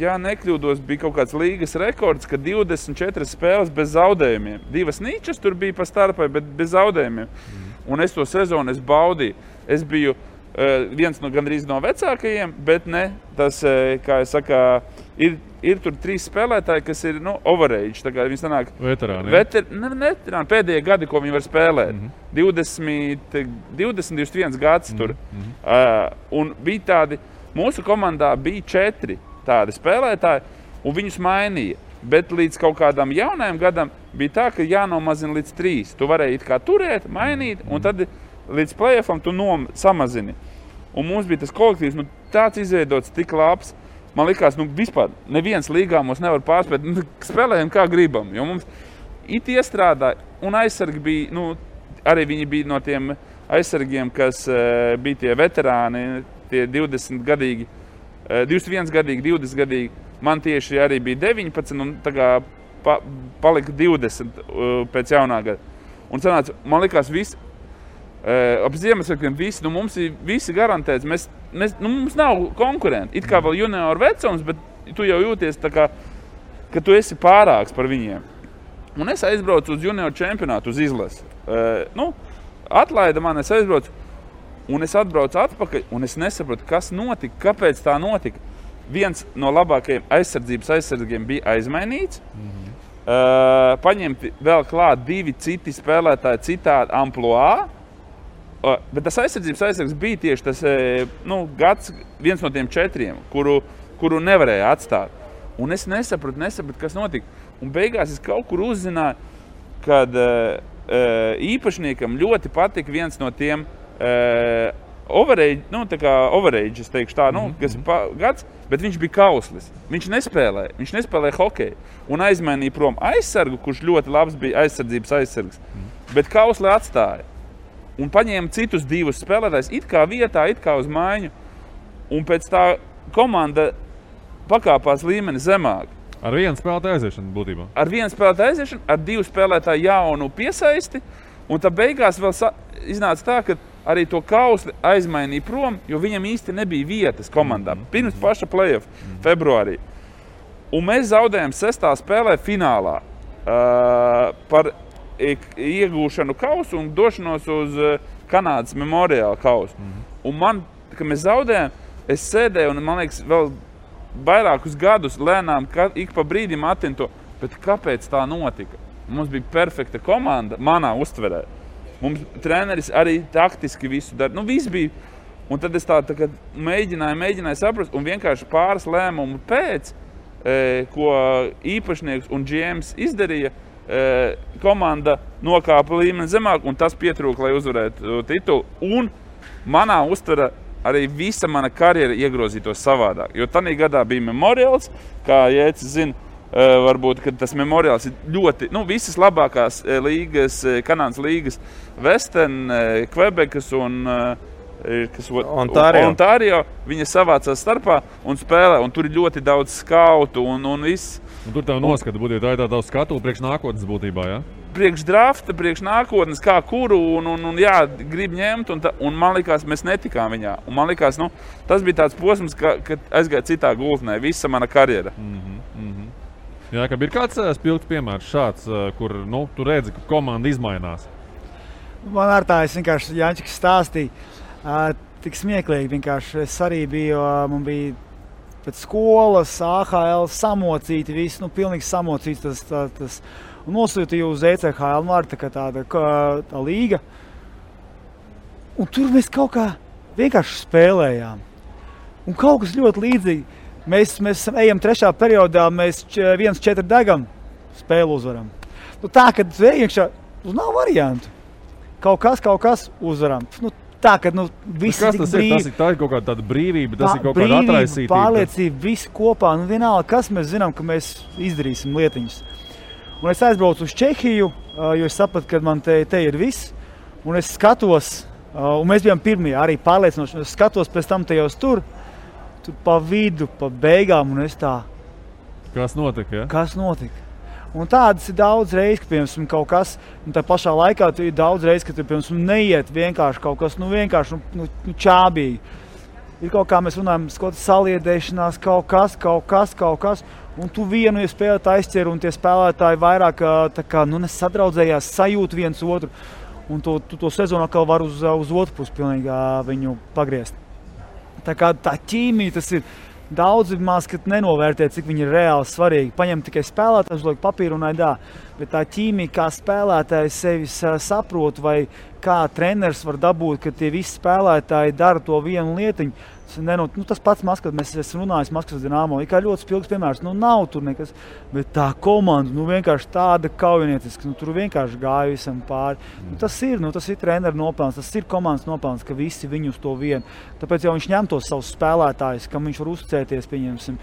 ja nekļūdos, bija kaut kāds līgas rekords, ka 24 spēles bez zaudējumiem. 2 nīčas tur bija pa starpai, bet bez zaudējumiem. Un es to sezonu baudīju. Es biju viens gandrīz no vecākajiem, bet ne tas, kā es saku, ir tur 3 spēlētāji, kas ir overage. Tā kā viņi sanāk veterāni, pēdējie gadi, ko viņi var spēlēt. 21 gads tur. Un bija tādi, mūsu komandā bija 4 tādi spēlētāji, un viņus mainīja. Bet līdz kaut kādam jaunajam gadam bija tā, ka jānomazina līdz 3. Tu varēji it kā turēt, mainīt, un tad līdz play-offam tu samazini. Un mums bija tas kolektīvs, tāds izveidots tik labs. Man likās, vispār neviens līgā mums nevar pārspēt, spēlējam kā gribam, jo mums it iestrādāja, un aizsargi bija, arī viņi bija no tiem aizsargiem, kas bija tie veterāni, tie 20-gadīgi, 21-gadīgi, 20-gadīgi. Man tieši arī bija 19 un tā kā palika 20 pēc jaunā gada. Un sanāca, man likās visi, ap Ziemassvētkiem visi, mums ir visi garantēts, mums nav konkurenti. It kā vēl junioru vecums, bet tu jau jūties tā kā, ka tu esi pārāks par viņiem. Un es aizbraucu uz junioru čempionātu, uz izlasi. atlaida man, es aizbraucu, un es atbraucu atpakaļ, un es nesaprotu, kas notika, kāpēc tā notika. Viens no labākajiem aizsargiem bija aizmainīts. Paņemti vēl klāt 2 citi spēlētāji citādi amploā. Bet tas aizsargs bija tieši tas gads, viens no tiem 4, kuru nevarēja atstāt. Un es nesapratu, kas notika. Un beigās es kaut kur uzzināju, kad īpašniekam ļoti patika viens no tiem overage, es teikšu tā, kas gads, bet viņš bija kauslis. Viņš nespēlēja hokeju un aizmainīja prom aizsargu, kurš ļoti labs bija aizsardzības aizsargs, bet kausli atstāja. Un paņēma citus 2 spēlētājus, it kā vietā, it kā uz maiņu, un pēc tā komanda pakāpās līmeni zemāk. Ar 1 spēlētāju aiziešanu būtībā? Ar 1 spēlētāju aiziešanu, ar 2 spēlētāju jaunu piesaisti, un tā beigās vēl iznāca tā, ka arī to kausli aizmainīja prom, jo viņam īsti nebija vietas komandā. Pirms paša play-off februārī. Un mēs zaudējām 6. spēlē finālā par iegūšanu kausu un došanos uz Kanādas memoriāla kausu. Un man, kad mēs zaudējām, es sēdēju un, man liekas, vēl vairākus gadus lēnām ik pa brīdim atinu to, bet kāpēc tā notika? Mums bija perfekta komanda manā uztverē. Mums treneris arī taktiski visu dara. Viss bija. Un tad es tā kā mēģināju saprast, un vienkārši pāris lēmumu pēc, ko īpašnieks un GMs izdarīja, komanda nokāpa līmeni zemāk, un tas pietrūka, lai uzvarētu titulu. Un manā uztverē arī visa mana karjera iegrozītos savādāk. Jo tanī gadā bija memoriāls, kā Jēcis zina, varbūt, ka tas memoriāls ir ļoti, visas labākās līgas, Kanādas līgas, Western, Quebecas un Ontario, viņa savācās starpā un spēlē, un tur ir ļoti daudz skautu un viss. Un tur tev noskata būtībā, tā ir tā skatu priekš nākotnes būtībā, jā? Priekš drafta, priekš nākotnes, kā kuru, un jā, grib ņemt, un man likās, mēs netikām viņā. Un man likās, tas bija tāds posms, kad aizgāja citā gultnē, visa mana karjera. Jā, ka ir kāds spilgts piemērs šāds, kur, tu redzi, ka komanda izmainās. Man ar tā, es vienkārši Jančiks stāstīja, tik smieklīgi vienkārši. Es arī biju, man bija pēc skolas, AHL samocīti, viss, pilnīgi samocīts tas. Un nosūtīju uz ECHL, tā līga. Un tur mēs kaut kā vienkārši spēlējām. Un kaut kas ļoti līdzīgi. Mēs ejam 3. periodā, mēs 1-4 degam, spēli uzvaram. Tā, kad iekšā, nav variantu. Kaut kas uzvaram. Tā, kad viss ir tik brīvi. Tā ir kaut kāda tāda brīvība, tas ir kaut kāda atraisītība. Pārliecība, visi kopā. Vienalga, kas mēs zinām, ka mēs izdarīsim lietiņas. Un es aizbraucu uz Čehiju, jo es sapratu, ka man te ir viss. Un es skatos, un mēs bijām pirmie arī pārliecinoši. Es skatos pēc tam tajos tur pa vidu, pa beigām, un es tā... Kas notika, ja? Kas notika? Un tādas ir daudz reizes, ka, piemēram, kaut kas, un tā pašā laikā ir daudz reizes, ka, piemēram, neiet vienkārši kaut kas, vienkārši čābīgi. Ir kaut kā mēs runājam, saliedēšanās, kaut kas, un tu vienu spēlētāju aizķer, un tie spēlētāji vairāk nesadraudzējās, sajūt viens otru, un to sezonu atkal var uz otru pusi pilnīgi viņu pagriezt. Tā kā tā ķīmija, tas ir daudz maz, kad nenovērtē, cik viņi ir reāli svarīgi. Paņem tikai spēlētājs, uzliek papīru un aidā. Bet tā ķīmija, kā spēlētājs sevi saprot, vai kā treneris var dabūt, ka tie visi spēlētāji dara to vienu lietiņu. Tas pats Maskavas, mēs esam runājis Maskavas Dinamo, ir kā ļoti spilgs piemērs. Nav tur nekas, bet tā komanda, vienkārši tāda kaujinieciska, tur vienkārši gāja visam pāri. Tas ir trenera nopelns, tas ir komandas nopelns, ka visi viņu uz to vienu. Tāpēc jau viņš ņem tos savus spēlētājus, kam viņš var uzticēties, pieņemsim,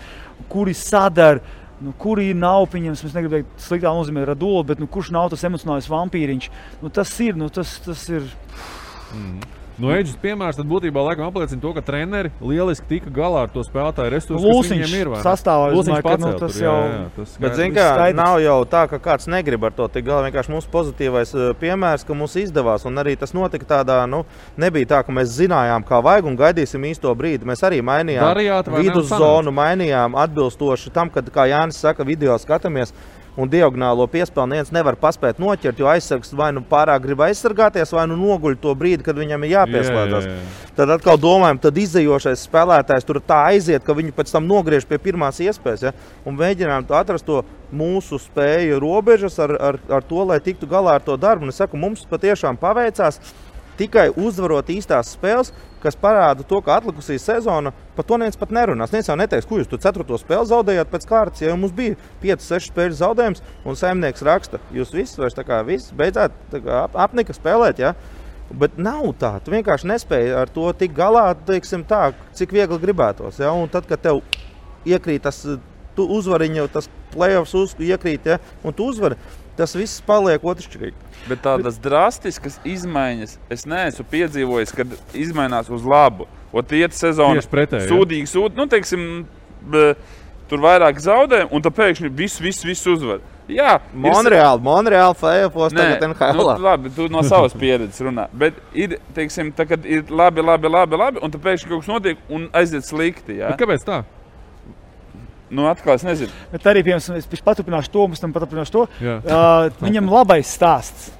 kuri sadara, kuri nav, pieņemsim, es negribu teikt sliktā nozīmē Radula, bet kurš nav tas emocionālais vampīriņš. Tas ir. Eģis piemērs tad būtībā laikam apliecina to, ka treneri lieliski tika galā ar to spēlētāju resursu, kas viņiem ir. Lūsiņš pacēl tas tur, jau... Bet zin kā, nav jau tā, ka kāds negrib ar to tik galā. Vienkārši mūsu pozitīvais piemērs, ka mums izdevās, un arī tas notika tādā, nebija tā, ka mēs zinājām, kā vajag un gaidīsim īsto brīdi. Mēs arī mainījām viduszonu, mainījām atbilstoši tam, kad, kā Jānis saka, video skatāmies. un diagonālo piespēli neviens nevar paspēt noķert, jo aizsargs vai nu pārāk grib aizsargāties, vai nu noguļ to brīdi, kad viņam ir jāpieslēdzas. Tad atkal domājam, tad izdejošais spēlētājs tur tā aiziet, ka viņu pēc tam nogriež pie pirmās iespējas, ja? Un mēģinām atrast to mūsu spēju robežas ar to, lai tiktu galā ar to darbu. Un es saku, mums patiešām paveicās tikai uzvarot īstās spēles, kas parāda to, ka atlikusī sezona, par to neviens pat nerunās. Neviens jau neteiks, ko jūs tu 4. spēli zaudējāt pēc kārtas, ja mums bija 5-6 spēļu zaudējums, un saimnieks raksta, jūs visi vairs tā kā visi beidzāt tā kā apnika spēlēt, ja? Bet nav tā, tu vienkārši nespēji ar to tik galā, teiksim tā, cik viegli gribētos, ja? Un tad, kad tev iekrīt tas uzvariņa, tas playoffs iekrīt, ja? Un tu uzvari, tas viss paliek otršķirīgi. Bet tādas drastiskas izmaiņas es neesmu piedzīvojis, kad izmainās uz labu. Ot iet sezona sūdīgi, nu teiksim, tur vairāk zaudē, un tad pēkšņi viss uzvar. Jā, Monreāli play-offs tagad NHL. Nu, labi, tu no savas pieredzes runā. Bet ir, teiksim, tagad ir labi, un tad pēkšņi kaut kas notiek un aiziet slikti. Jā? Bet kāpēc tā? Nu, atkal es nezinu. Bet arī, piemēram, es paturpināšu to, mums tam paturpināšu to. Viņam labais stāsts,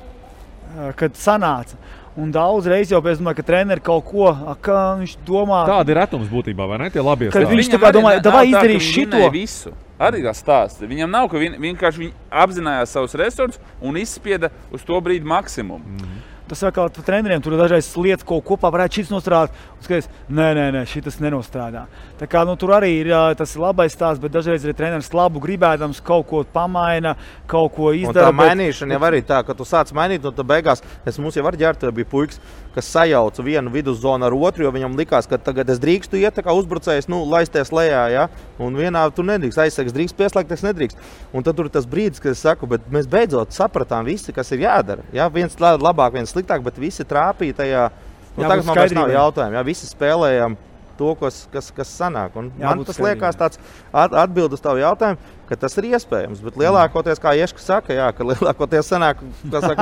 kad sanāca. Un daudz reizi jau es domāju, ka treneri kaut ko, kā viņš domā. Tāda ir retums būtībā, vai ne? Tie labie stāsti. Kad viņš tā kā domāja, davai izdarīs šito. Visu. Arī kā stāsts. Viņam nav, ka vienkārši viņi apzinājās savus resursus un izspieda uz to brīdi maksimumu. Tas atkal treneriem tur dažreiz lietas, ko kopā varētu šis nostrādāt, un skaties, nē, šitas nenostrādā. Tā kā, tur arī ir tas labais stāsts, bet dažreiz arī treneris labu gribēdams kaut ko pamaina, kaut ko izdara. Un tā mainīšana jau arī tā, ka tu sāc mainīt, un tad beigās, mums jau ar ģērtu bija puikas, kas sajauca vienu viduszonu ar otru, jo viņam likās, ka tagad es drīkstu iet, tā kā uzbrucējs, laisties lejā, ja? Un vienā tu nedrīkst, aizsargs drīkst pieslēgties, nedrīkst. Un tad tur ir tas brīdis, kad es saku, bet mēs beidzot sapratām visi, kas ir jādara. Ja? Viens labāk, viens sliktāk, bet visi trāpīja tajā. Tagad man vairs nav jautājumu. Ja? Visi spēlējam to, kas sanāk. Un man tas liekas tāds atbild uz tavu jautājumu, ka tas ir iespējams. Bet lielākoties, kā Ieška saka, jā, ka lielākoties sanāk,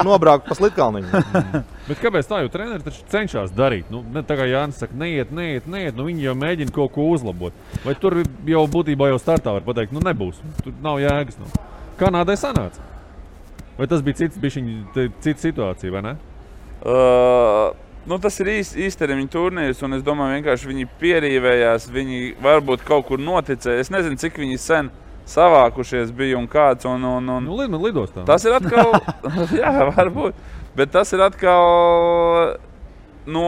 nobraukt pa slitkalniņu. Bet kāpēc tā, jo treneri taču cenšas darīt? Ne tā kā Jānis saka, neiet, viņi jau mēģina kaut ko uzlabot. Vai tur jau būtībā jau startā var pateikt, nebūs, tur nav jēgas. Kanādai sanāca? Vai tas bija cita situācija, vai ne? Tas ir īstermiņa turnīrs, un es domāju, vienkārši viņi pierīvējās, viņi varbūt kaut kur noticēja. Es nezinu, cik viņi sen savākušies bija un kāds. Lidostā. Tas ir atkal, jā, varbūt, bet tas ir atkal no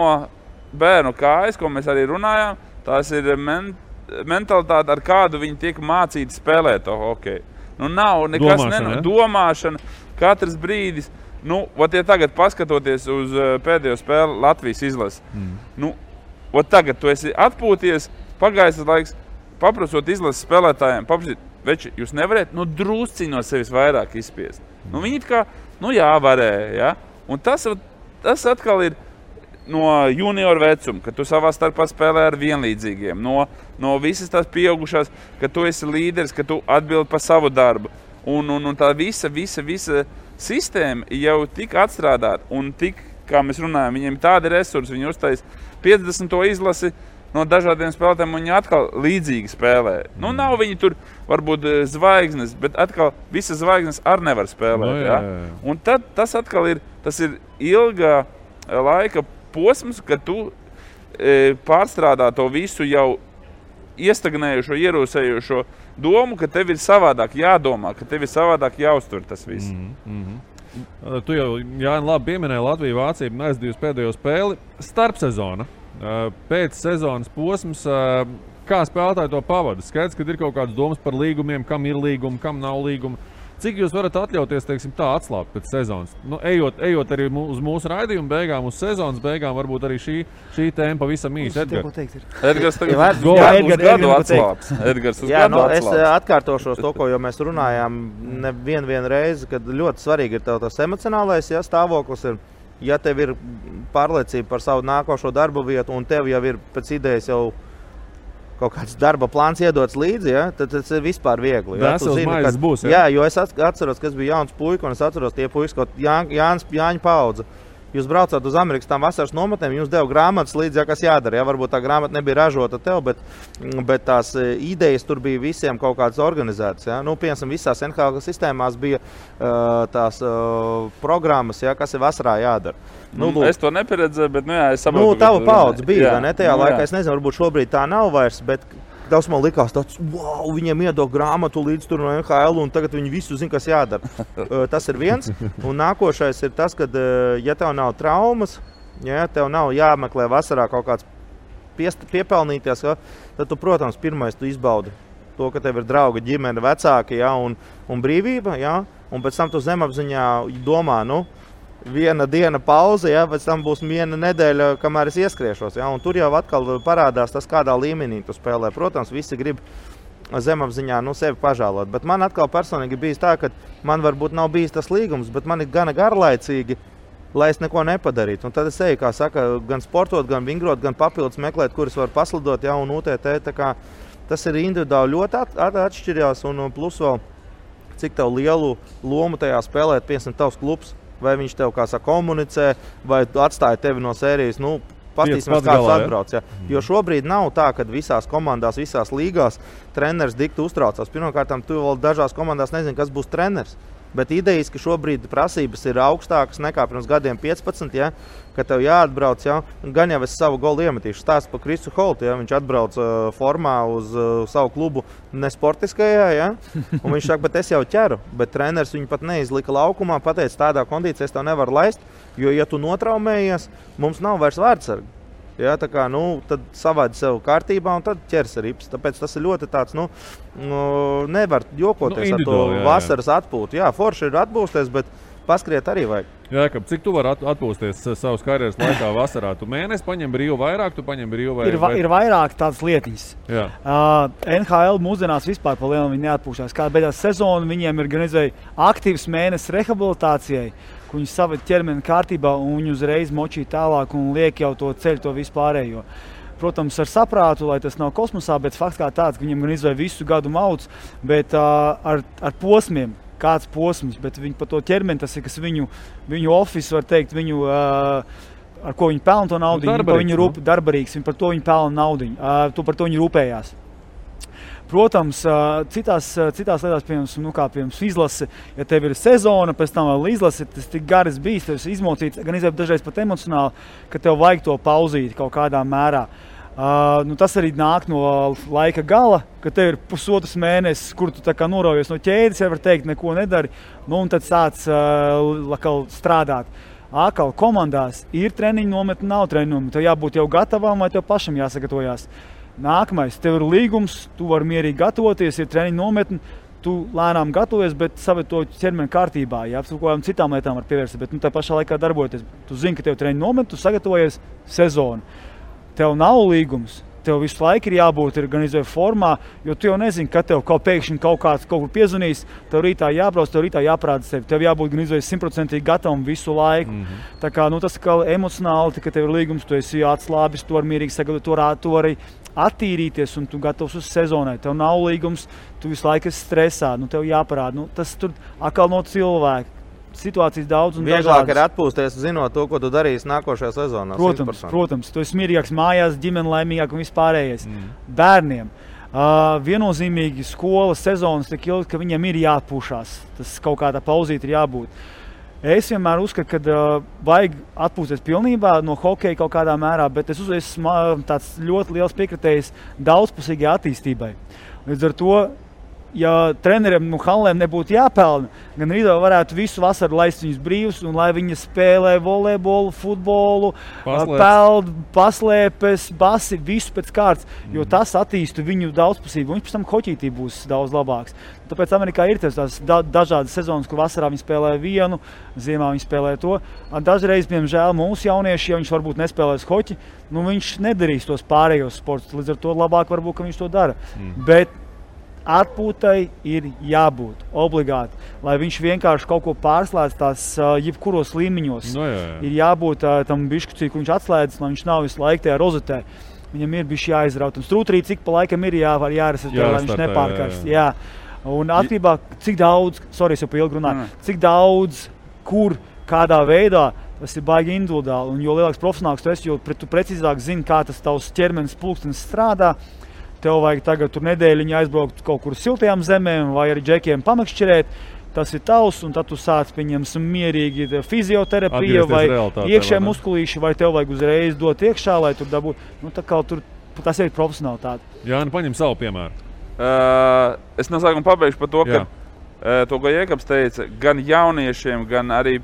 bērnu kājas, ko mēs arī runājām. Tas ir mentalitāte, ar kādu viņi tiek mācīti spēlēt to hokeju. Nav nekas domāšana, katrs brīdis. Ja tagad paskatoties uz pēdējo spēli Latvijas izlasi, tagad tu esi atpūties, pagājis laiks, paprasot izlases spēlētājiem, veči, jūs nevarēt, drusciņi no sevis vairāk izspiest. Viņi it kā, jā, varēja, ja? Un tas atkal ir no junioru vecuma, ka tu savā starpā spēlē ar vienlīdzīgiem, no visas tās pieaugušās, ka tu esi līderis, ka tu atbildi par savu darbu. Un tā visa sistēma jau tik atstrādāta un tik, kā mēs runājam, viņiem tādi resursi, viņi uztais 50. izlasi no dažādiem spēlētājiem, un viņi atkal līdzīgi spēlē. Nav viņi tur varbūt zvaigznes, bet atkal visas zvaigznes arī nevar spēlēt. Jā. Un tad tas atkal ir ilgā laika posms, kad tu pārstrādā to visu jau iestagnējušo, ierūsējušo domu, ka tev ir savādāk jādomā, ka tev ir savādāk jāuztver tas viss. Tu jau, Jāni, labi pieminēji Latviju, Vāciju, aizdījusi pēdējo spēli. Starpsezona, pēc sezonas posms, kā spēlētāji to pavada? Skaidrs, ka ir kaut kādas domas par līgumiem, kam ir līgumi, kam nav līgumi. Cik jūs varat atļauties, teiksim, tā atslābt pēc sezonas? Ejot arī uz mūsu raidījumu beigām, uz sezonas beigām, varbūt arī šī tēma pavisam īsi. Edgars tagad uz gadu atslāps. Es atkārtošos to, ko jau mēs runājām nevienu reizi, kad ļoti svarīgi ir tas emocionālais stāvoklis. Ja tev ir pārliecība par savu nākošo darbu vietu un tev jau ir pēc idejas jau kaut kāds darba plāns iedots līdzi, tad tas ir vispār viegli. Būs, jo es atceros, kas bija jauns puika, un es atceros tie puikas, kaut Jāņa paudze. jūs braucāt uz Amerikas tām vasaras nometnēm, jums deva grāmatas līdzi, kas jādara. Ja? Varbūt tā grāmata nebija ražota tev, bet tās idejas tur bija visiem kaut kādas organizētas. Ja? Nu, piemēram, visās NHL sistēmās bija tās programmas, ja? Kas ir vasarā jādara. Nu, es to nepieredzēju, bet es saprotu. Nu, tava paudze bija, vai ne? Tajā laikā, es nezinu, varbūt šobrīd tā nav vairs, bet daudz man likās tāds, wow, viņiem iedod grāmatu līdz tur no NHL, un tagad viņi visu zina, kas jādara. Tas ir viens. Un nākošais ir tas, ka, ja tev nav traumas, ja tev nav jāmeklē vasarā kaut kāds piepelnīties, tad tu, protams, pirmais tu izbaudi to, ka tev ir draugi, ģimene, vecāki, ja, un brīvība, ja, un pēc tam tu zemapziņā domā, viena diena pauze, ja, pēc tam būs viena nedēļa, kamēr es ieskriešos. Ja, un tur jau atkal parādās tas, kādā līmenī tu spēlē. Protams, visi grib zemapziņā sevi pažēlot. Bet man atkal personīgi bijis tā, ka man varbūt nav bijis tas līgums, bet man ir gana garlaicīgi, lai es neko nepadarītu. Un tad es eju, kā saka, gan sportot, gan vingrot, gan papildus meklēt, kuras var paslidot, ja, un UTT. Tā kā tas ir individuāli ļoti atšķirjās, un plus vēl, cik tev lielu lomu tajā spēlēt, piemēram, tavs klubs. Vai viņš tev, kā saka, komunicē, vai atstāja tevi no sērijas, paskatīsimies, kāds atbrauc. Ja. Jo šobrīd nav tā, ka visās komandās, visās līgās treneris dikti uztraucās. Pirmkārt, tu vēl dažās komandās nezini, kas būs treneris. Bet idejas, ka šobrīd prasības ir augstākas nekā pirms gadiem 15, ja, ka tev jāatbrauc, ja, gan jau es savu golu iemetīšu. Stāstu par Krisu Holtu, ja, viņš atbrauc formā uz savu klubu nesportiskajā, ja, un viņš saka, bet es jau ķeru, bet treneris viņu pat neizlika laukumā, pateica, tādā kondīcijā es tev nevaru laist, jo, ja tu notraumējies, mums nav vairs vārdsargi. Ja, tā kā, tad savādi sev kārtībā un tad ķers rips. Tāpēc tas ir ļoti tāds, nevar jokoties ar to vasaras atpūtu. Jā, forši ir atpūsties, bet paskriet arī vajag. Jā, cik tu vari atpūsties savas karjeras laikā vasarā? Tu mēnesi paņem brīvu vairāk, tu paņem brīvu vairāk? Ir vairāk tādas lietiņas. NHL mūsdienās vispār pa lielu viņi neatpūšās. Kā beidās sezonu, viņiem ir gan aktīvs mēnesis rehabilitācijai, ka viņi saved ķermeni kārtībā un viņi uzreiz močī tālāk un liek jau to ceļu, to vispārējo. Protams, ar saprātu, lai tas nav kosmosā, bet fakts kā tāds, ka viņiem gan izvēja visu gadu mauc, bet ar posmiem, kāds posms, bet viņi pa to ķermeni, tas ir, kas viņu office, var teikt, viņu, ar ko viņi pelna to naudiņu, darbarīgs, par to viņi pelna naudiņu, par to viņi rūpējās. Protams, citās lietās, piemēram, izlase, ja tev ir sezona, pēc tam vēl izlase, tas tik garas bijis, tev izmocīts, gan dažreiz pat emocionāli, ka tev vajag to pauzīt kaut kādā mērā. Tas arī nāk no laika gala, ka tev ir pusotrs mēnesis, kur tu tā kā noraujies no ķēdes, ja var teikt, neko nedari, un tad sāc strādāt. Atkal komandās ir treniņu nometne, nav treniņu nometne, tev jābūt jau gatavam vai tev pašam jāsagatavojās. Nākamais, tev ir līgums, tu vari mierīgi gatavoties, ir treniņu nometni, tu lēnām gatavojies, bet saved to ķermeni kārtībā, jā, kaut kādām citām lietām var pievērst, bet tā pašā laikā darboties. Tu zini, ka tev treniņu nometni, tu sagatavojies sezonu. Tev nav līgums, tev visu laiku ir jābūt organizēt formā, jo tu jau nezini, ka tev pēkšņi kaut kur piezvanīs, tev rītā jābrauc, tev rītā jāprāda sevi, tev jābūt organizēt 100% gatavam visu laiku. Tā kā, tas kā emocionāli, ka tev ir līgums, tu esi atslābis, tu vari mierīgi sagatavot, tu vari attīrīties un tu gatavs uz sezonai. Tev nav līgums, tu visu laiku esi stresā, tev jāparāda. Tas tur atkal no cilvēka. Situācijas daudz un dažādas. Vieglāk ir atpūsties, zinot to, ko tu darīsi nākošajā sezonā. Protams, tu esi mierīgāks mājās, ģimene laimīgāk un vispārējais. Bērniem viennozīmīgi skolas sezonas tik ilgi, ka viņiem ir jāatpūšās. Tas kaut kādā pauzīt ir jābūt. Es vienmēr uzskatu, ka vajag atpūsties pilnībā no hokeja kaut kādā mērā, bet es esmu tāds ļoti liels piekritējis daudzpusīgai attīstībai. Līdz ar to, ja treneriem hallēm nebūtu jāpelna, gan arī varētu visu vasaru laist viņus brīvus, un lai viņi spēlē volejbolu, futbolu, peld, paslēpes, basi, visu pēc kārtas, jo tas attīstu viņu daudzpusību, un pēc tam hoķītī būs daudz labāks. Tāpēc Amerikā ir tās dažādas sezonas, kur vasarā viņi spēlē vienu, ziemā viņi spēlē to. Dažreiz, piemēram, mūsu jaunieši, ja viņš varbūt nespēlēs hoķi, viņš nedarīs tos pārējos sportus, līdz ar to labāk varbūt, ka viņš to dara. Bet atpūtai ir jābūt obligāti, lai viņš vienkārši kaut ko pārslēdz tās jebkuros līmeņos. Ir jābūt tam bišķucī, kur viņš atslēdz, lai viņš nav visu laiku tajā rozetē. Viņam ir bišķi jāizraut. Un strūtrī, cik pa laikam ir jāresetē, lai viņš nepārkarst. Jā. Un atkarībā, cik daudz, es jau pa ilgi runāju, cik daudz, kur, kādā veidā Tas ir baigi individuāli, un jo lielāks profesionāls tu esi, jo tu precīzāk zini, kā tas tavs ķermenis pulkstenis strādā. Tev vajag tagad tur nedēļiņu aizbraukt kaut kur siltajām zemēm vai arī džekiem pamakšķirēt. Tas ir tavs, un tad tu sāc pieņemsim mierīgi fizioterapija vai iekšē muskulīši, vai tev vajag uzreiz dot iekšā, lai tur dabūtu. Nu, tā kā tur, tas ir profesionālitāte. Jāni, paņem savu piemēru. Es no sākuma pabeigšu par to, ka to, ko Jēkabs teica, gan jauniešiem, gan arī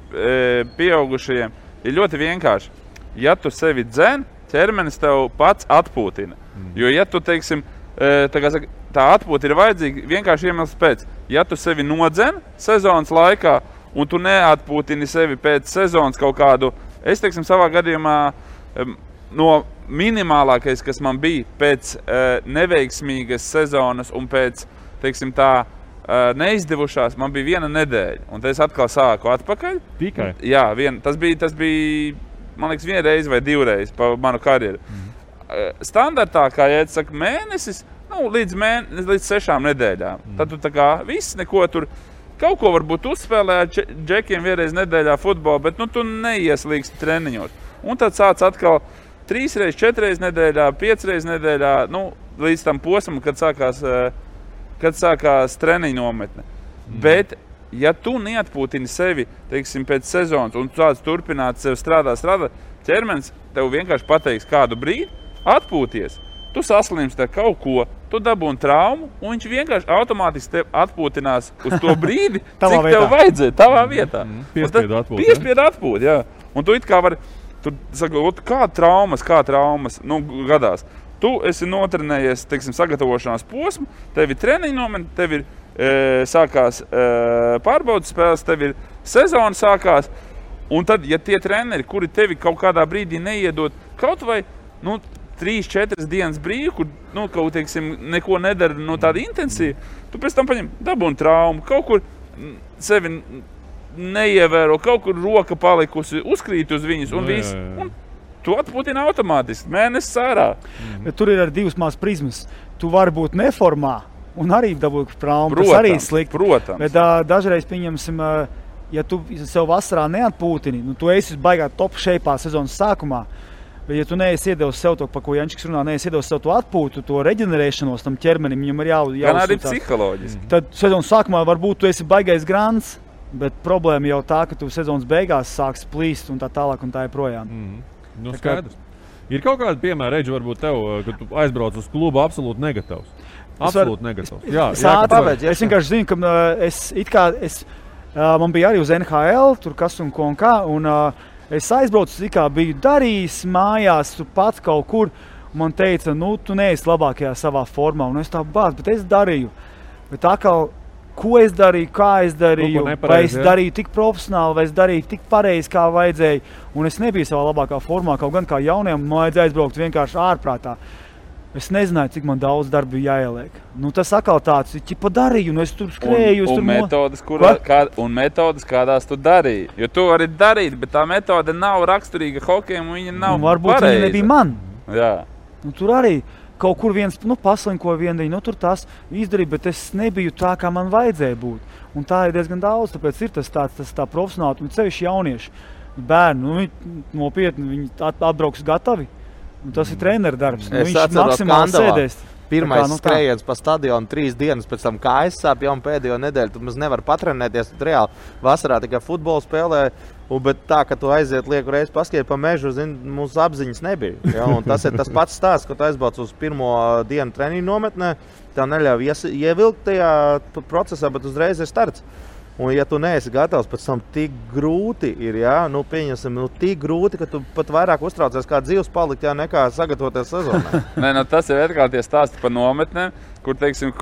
pieaugušajiem, ir ļoti vienkārši. Ja tu sevi dzen, ķermenis tev pats atpūtina. Jo, ja tu, teiksim, tā atpūta ir vajadzīga vienkārši iemesls pēc. Ja tu sevi nodzen sezonas laikā, un tu neatpūtini sevi pēc sezonas kaut kādu, es, teiksim, savā gadījumā no minimālākais, kas man bija pēc neveiksmīgas sezonas un pēc, teiksim, tā neizdevušās, man bija 1 nedēļa. Un tad es atkal sāku atpakaļ. Tikai? Jā, tas bija, man liekas, 1 reizi vai 2 reizes pa manu karjeru. Standartā, kā Jēdz saka, mēnesis, līdz 6 nedēļām. Tad tu tā kā viss neko tur, kaut ko varbūt uzspēlē ar džekiem 1 reizi nedēļā futbolu, bet tu neieslīgsti treniņos. Un tad sāc atkal 3 reizes, 4 reizes nedēļā, 5 reizes nedēļā, līdz tam posmam, kad sākās treniņu nometne. Bet, ja tu neatpūtini sevi, teiksim, pēc sezonas un tu sāc turpināt sev strādāt, ķermenis tev vienkārši pateiks kādu brīdi, atpūties. Tu saslimsti ar kaut ko, tu dabūni traumu, un viņš vienkārši automātiski tev atpūtinās uz to brīdi, cik tev vajadzēja, tavā vietā. Piespiedu atpūt, jā. Un tu it kā vari, tu saka, kā traumas, gadās. Tu esi notrenējies, teiksim, sagatavošanās posmu, tev ir treniņu nometne, tev ir sākās pārbaudas spēles, tev ir sezona sākās, un tad, ja tie treneri, kuri tevi kaut kādā brīdī neiedod, kaut vai, 3-4 dienas brīvi, kur, kaut, teiksim, neko nedara tāda intensīva, tu pēc tam paņem dabūni traumu, kaut kur sevi neievēro, kaut kur roka palikusi, uzkrīt uz viņas un viss. Un tu atpūtini automātiski, mēnesis ārā. Bet tur ir arī 2 mās prizmas. Tu vari būt neformā un arī dabūt traumu. Tas arī slikti. Protams. Bet dažreiz, pieņemsim, ja tu sev vasarā neatpūtini, tu esi baigā top shape'ā sezonas sākumā, bet ja tu neesi iedevis sev to, pa ko Jančiks runā, neesi iedevis sev to atpūtu, to reģenerēšanos tam ķermenim, viņam ir jāuzsūtās. Gan arī psiholoģiski. Tad sezonas sākumā varbūt tu esi baigais grants, bet problēma jau tā, ka tu sezonas beigās sāks plīst un tā tālāk un tā joprojām. Skaidrs. Ir kaut kāda piemēra, Reģi, varbūt tev, kad tu aizbrauc uz klubu absolūti negatavs. Absolūti negatavs. Es vienkārši zinu, ka man bija arī uz NHL, tur kas un ko un kā, un es aizbraucu, biju darījis mājās, tu pats kaut kur, un man teica, tu neesi labākajā savā formā, un es tā bāc, bet es darīju. Bet atkal, ko es darīju, kā es darīju, vai es darīju tik profesionāli, vai es darīju tik pareizi, kā vajadzēja, un es nebiju savā labākā formā, kaut gan kā jauniem, man vajadzēja aizbraukt vienkārši ārprātā. Es nezināju, cik man daudz darba jāieliek. Tas atkal tāds, ķipa darīju, un es tur skrēju. Un metodas, kādās tu darīji. Jo tu vari darīt, bet tā metode nav raksturīga hokejam, un viņa nav varbūt pareiza. Viņa nebija man. Jā. Tur arī kaut kur viens paslinko viendiņu, tur tās izdarīja, bet es nebiju tā, kā man vajadzēja būt. Un tā ir diezgan daudz, tāpēc ir tas tā profesionāli, un cevišķi jaunieši. Bērni, viņi nopietni, viņi atbrauks gatavi. Tas ir treneru darbs. Es atceros Kandavā. Pirmais skrējiens pa stadionu 3 dienas, pēc tam kājas sāp jau pēdējo nedēļu. Tu mums nevar patrenēties. Reāli vasarā tikai futbolu spēlē, bet tā, ka tu aiziet lieku reizi paskiet pa mežu, mūsu apziņas nebija. Ja? Un tas ir tas pats stāsts, ka tu aizbrauc uz pirmo dienu treniņu nometnē, tev neļauj ievilkt tajā procesā, bet uzreiz ir starts. Un, ja tu neesi gatavs, pēc tam tik grūti ir, pieņemsim, tik grūti, ka tu pat vairāk uztraucies kā dzīves palikt, nekā sagatavoties sezonā. Tas ir atkal tie stāsti par nometnēm, kur, teiksim,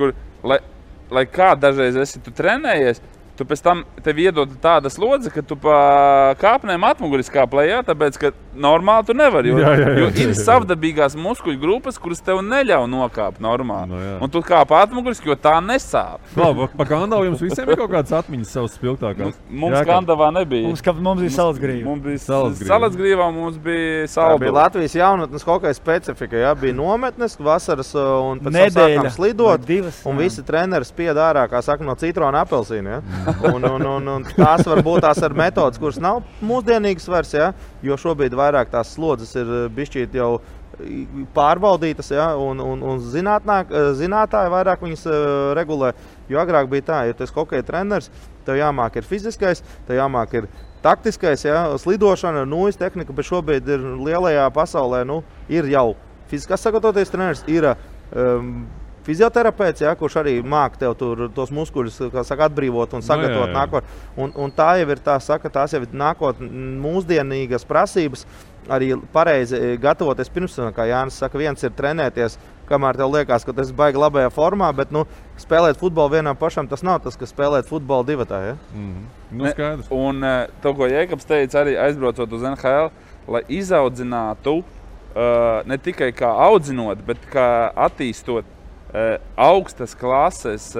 lai kā dažreiz esi tu trenējies, tu pēc tam tev iedod tāda slodze, ka tu pa kāpnēm atmuguris kāplē, tāpēc, ka normāli tu nevari, jo ir savdabīgās muskuļu grupas, kuras tev neļauj nokāpt normāli. Un tu kāp atmuguris, jo tā nesāp. Pa Kandavu jums visiem ir kaut kādas atmiņas savas spilgtākās? Mums Kandavā nebija. Mums bija Salacgrīva. Mums bija Salacgrīvā, mums bija Saldu. Tā bija Latvijas jaunatnes hokeja specifika, bija nometnes, vasaras un pēc tam sākām slidot, un visi treneri spied ārā, kā saka, no citrona apelsīna. Un tās var būt tās ar metodas, kuras nav mūsdienīgas vairs, ja? Jo šobrīd vairāk tās slodzes ir bišķīt jau pārbaudītas, ja? Un zinātāji vairāk viņas regulē. Jo agrāk bija tā, ja tu esi hokeja treneris, tev jāmāk ir fiziskais, tev jāmāk ir taktiskais, ja? Slidošana, nūjas tehnika, bet šobrīd ir lielajā pasaulē, ir jau fiziskās sagatavoties treneris, ir fizioterapeits, ja, kurš arī māk tev tur tos muskuļus, kā saka, atbrīvot un sagatavot nākotnē. Un tā jau ir tās jau ir nākotnē mūsdienīgas prasības, arī pareizi gatavoties pirms, kā Jānis saka, viens ir trenēties, kamēr tev liekas, ka tas baigi labajā formā, bet spēlēt futbolu vienam pašam, tas nav tas, kas spēlēt futbolu divatā. Ja? Skaidrs. Un to, ko Jēkabs teica, arī aizbraucot uz NHL, lai izaudzinātu ne tikai kā audzinot, bet kā attīstot augstas klases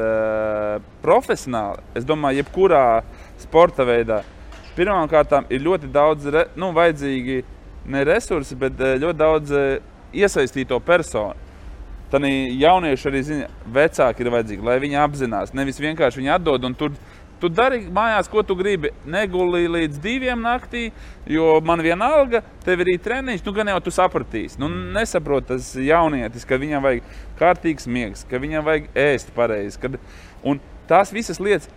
profesionāli, es domāju, jebkurā sporta veidā. Pirmkārtām ir ļoti daudz vajadzīgi ne resursi, bet ļoti daudz iesaistīto personu. Tad jaunieši arī zina, vecāki ir vajadzīgi, lai viņi apzinās. Nevis vienkārši viņi atdod un tu dari mājās, ko tu gribi. Negulī līdz 2 naktī, jo man vienalga, tev ir treniņš, gan jau tu sapratīsi. Nesaprot tas jaunietis, ka viņam vajag kārtīgs miegs, ka viņam vajag ēst pareizi. Un tās visas lietas,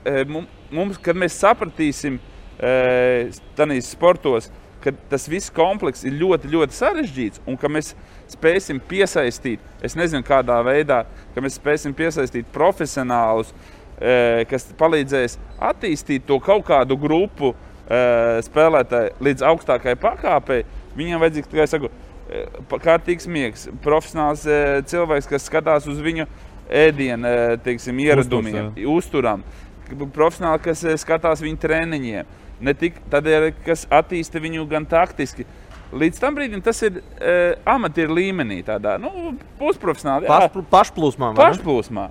kad mēs sapratīsim tanīs sportos, ka tas viss komplekss ir ļoti, ļoti sarežģīts un ka mēs spēsim piesaistīt, es nezinu kādā veidā, ka mēs spēsim piesaistīt profesionālus, kas palīdzēs attīstīt to kaut kādu grupu spēlētāju līdz augstākai pakāpei. Viņiem vajadzīgs, kā es saku, kārtīgs miegs, profesionāls cilvēks, kas skatās uz viņu ēdienu, teiksim, ieradumiem, uzturam. Profesionāli, kas skatās viņu treniņiem. Ne tik tādēļ, kas attīsta viņu gan taktiski. Līdz tam brīdim tas ir amatieru līmenī, tādā pusprofesionāli. Pašplūsmā. Pašplūsmā.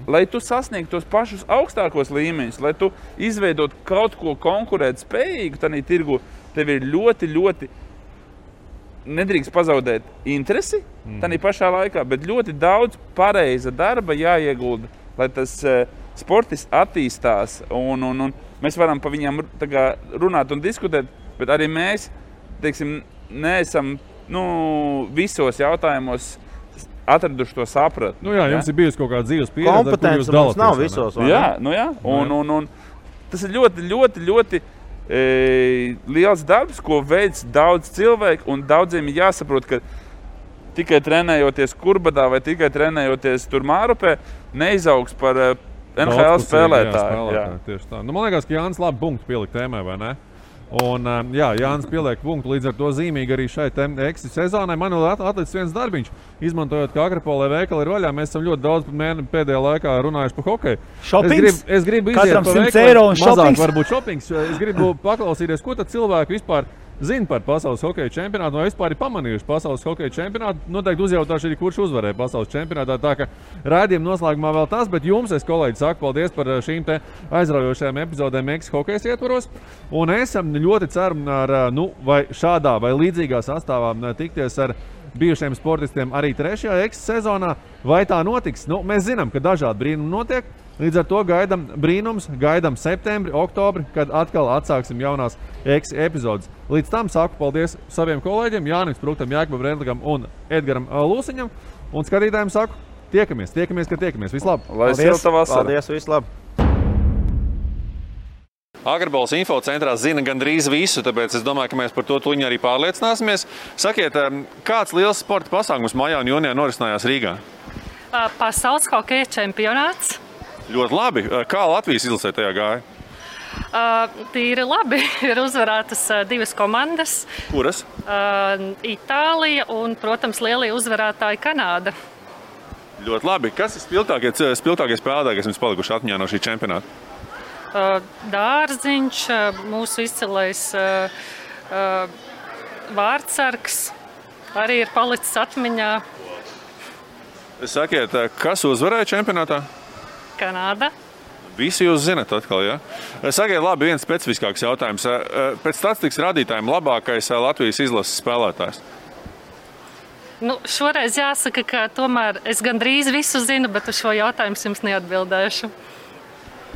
Lai tu sasniegtu tos pašus augstākos līmeņus, lai tu izveidot kaut ko konkurēt spējīgu, tādā tirgu, tev ir ļoti, ļoti nedrīkst pazaudēt interesi tādā pašā laikā, bet ļoti daudz pareiza darba jāiegulda, lai tas sportis attīstās. Un mēs varam pa viņām runāt un diskutēt, bet arī mēs, teiksim, neesam visos jautājumos atraduši to saprat. Jums ir bijusi kaut kāda dzīves pieredze, kompetence mums nav visos. Jā. Un tas ir ļoti, ļoti, ļoti liels darbs, ko veids daudz cilvēku, un daudziem ir jāsaprot, ka tikai trenējoties Kurbadā vai tikai trenējoties tur Mārupē, neizaugs par NHL spēlētāju. Jā. Tieši tā. Man liekas, ka Jānis labi punktu pielikt tēmai, vai ne? Un, Jānis pieliek punktu, līdz ar to zīmīgi arī šai eksis sezonai. Man vēl atlicis viens darbiņš, izmantojot, ka Akrapolē veikali ir vaļā. Mēs esam ļoti daudz pēdējā laikā runājuši par hokeju. Šopings? Es gribu iziet Katram pa 100 eiro un mazāk šopings? varbūt šopings. Es gribu paklausīties, ko tad cilvēki vispār zina par pasaules hokeja čempionātu, vai vispār ir pamanījuši pasaules hokeja čempionātu. Noteikti uzjautāšu arī, kurš uzvarēja pasaules čempionātā. Tā ka raidījuma noslēgumā vēl tas, bet jums, es kolēģi, saku paldies par šīm te aizraujošajām epizodēm Eksis hokejas ietvaros. Un es ļoti ceru, vai šādā vai līdzīgā sastāvā tikties ar bijušiem sportistiem arī 3. Eksis sezonā. Vai tā notiks? Mēs zinām, ka dažādi brīnumi notiek. Līdz ar to gaidām brīnums, gaidām septembri, oktobri, kad atkal atsāksim jaunās Eksis epizodes. Līdz tam saku paldies saviem kolēģiem, Jānim Spruktam, Jākabam Redlikam un Edgaram Lūsiņam. Un skatītājiem saku, tiekamies, kad tiekamies. Vislab! Lai silta vasara! Paldies, vislab! Akrapoles infocentrā zina gandrīz visu, tāpēc es domāju, ka mēs par to tuļņi arī pārliecināsimies. Sakiet, kāds liels sporta pasākums maijā un jūnijā norisinājās Rīgā? Pasaules hokeja čempionāts. Ļoti labi. Kā Latvijas izlasē tajā gāja? Tīri labi. Ir uzvarētas 2 komandas. Kuras? Itālija un, protams, lielie uzvarētāji Kanāda. Ļoti labi. Kas ir spilgtākie spēlētāji, kas jums palikuši atmiņā no šī čempionāta? Dārziņš, mūsu izcilais vārdsargs arī ir palicis atmiņā. Sakiet, kas uzvarēja čempionātā? Kanāda. Visi jūs zinat atkal, ja? Sakiet, labi, viens specifiskāks jautājums. Pēc statistikas rādītājiem labākais Latvijas izlases spēlētājs? Šoreiz jāsaka, ka tomēr es gandrīz visu zinu, bet uz šo jautājumu jums neatbildēšu.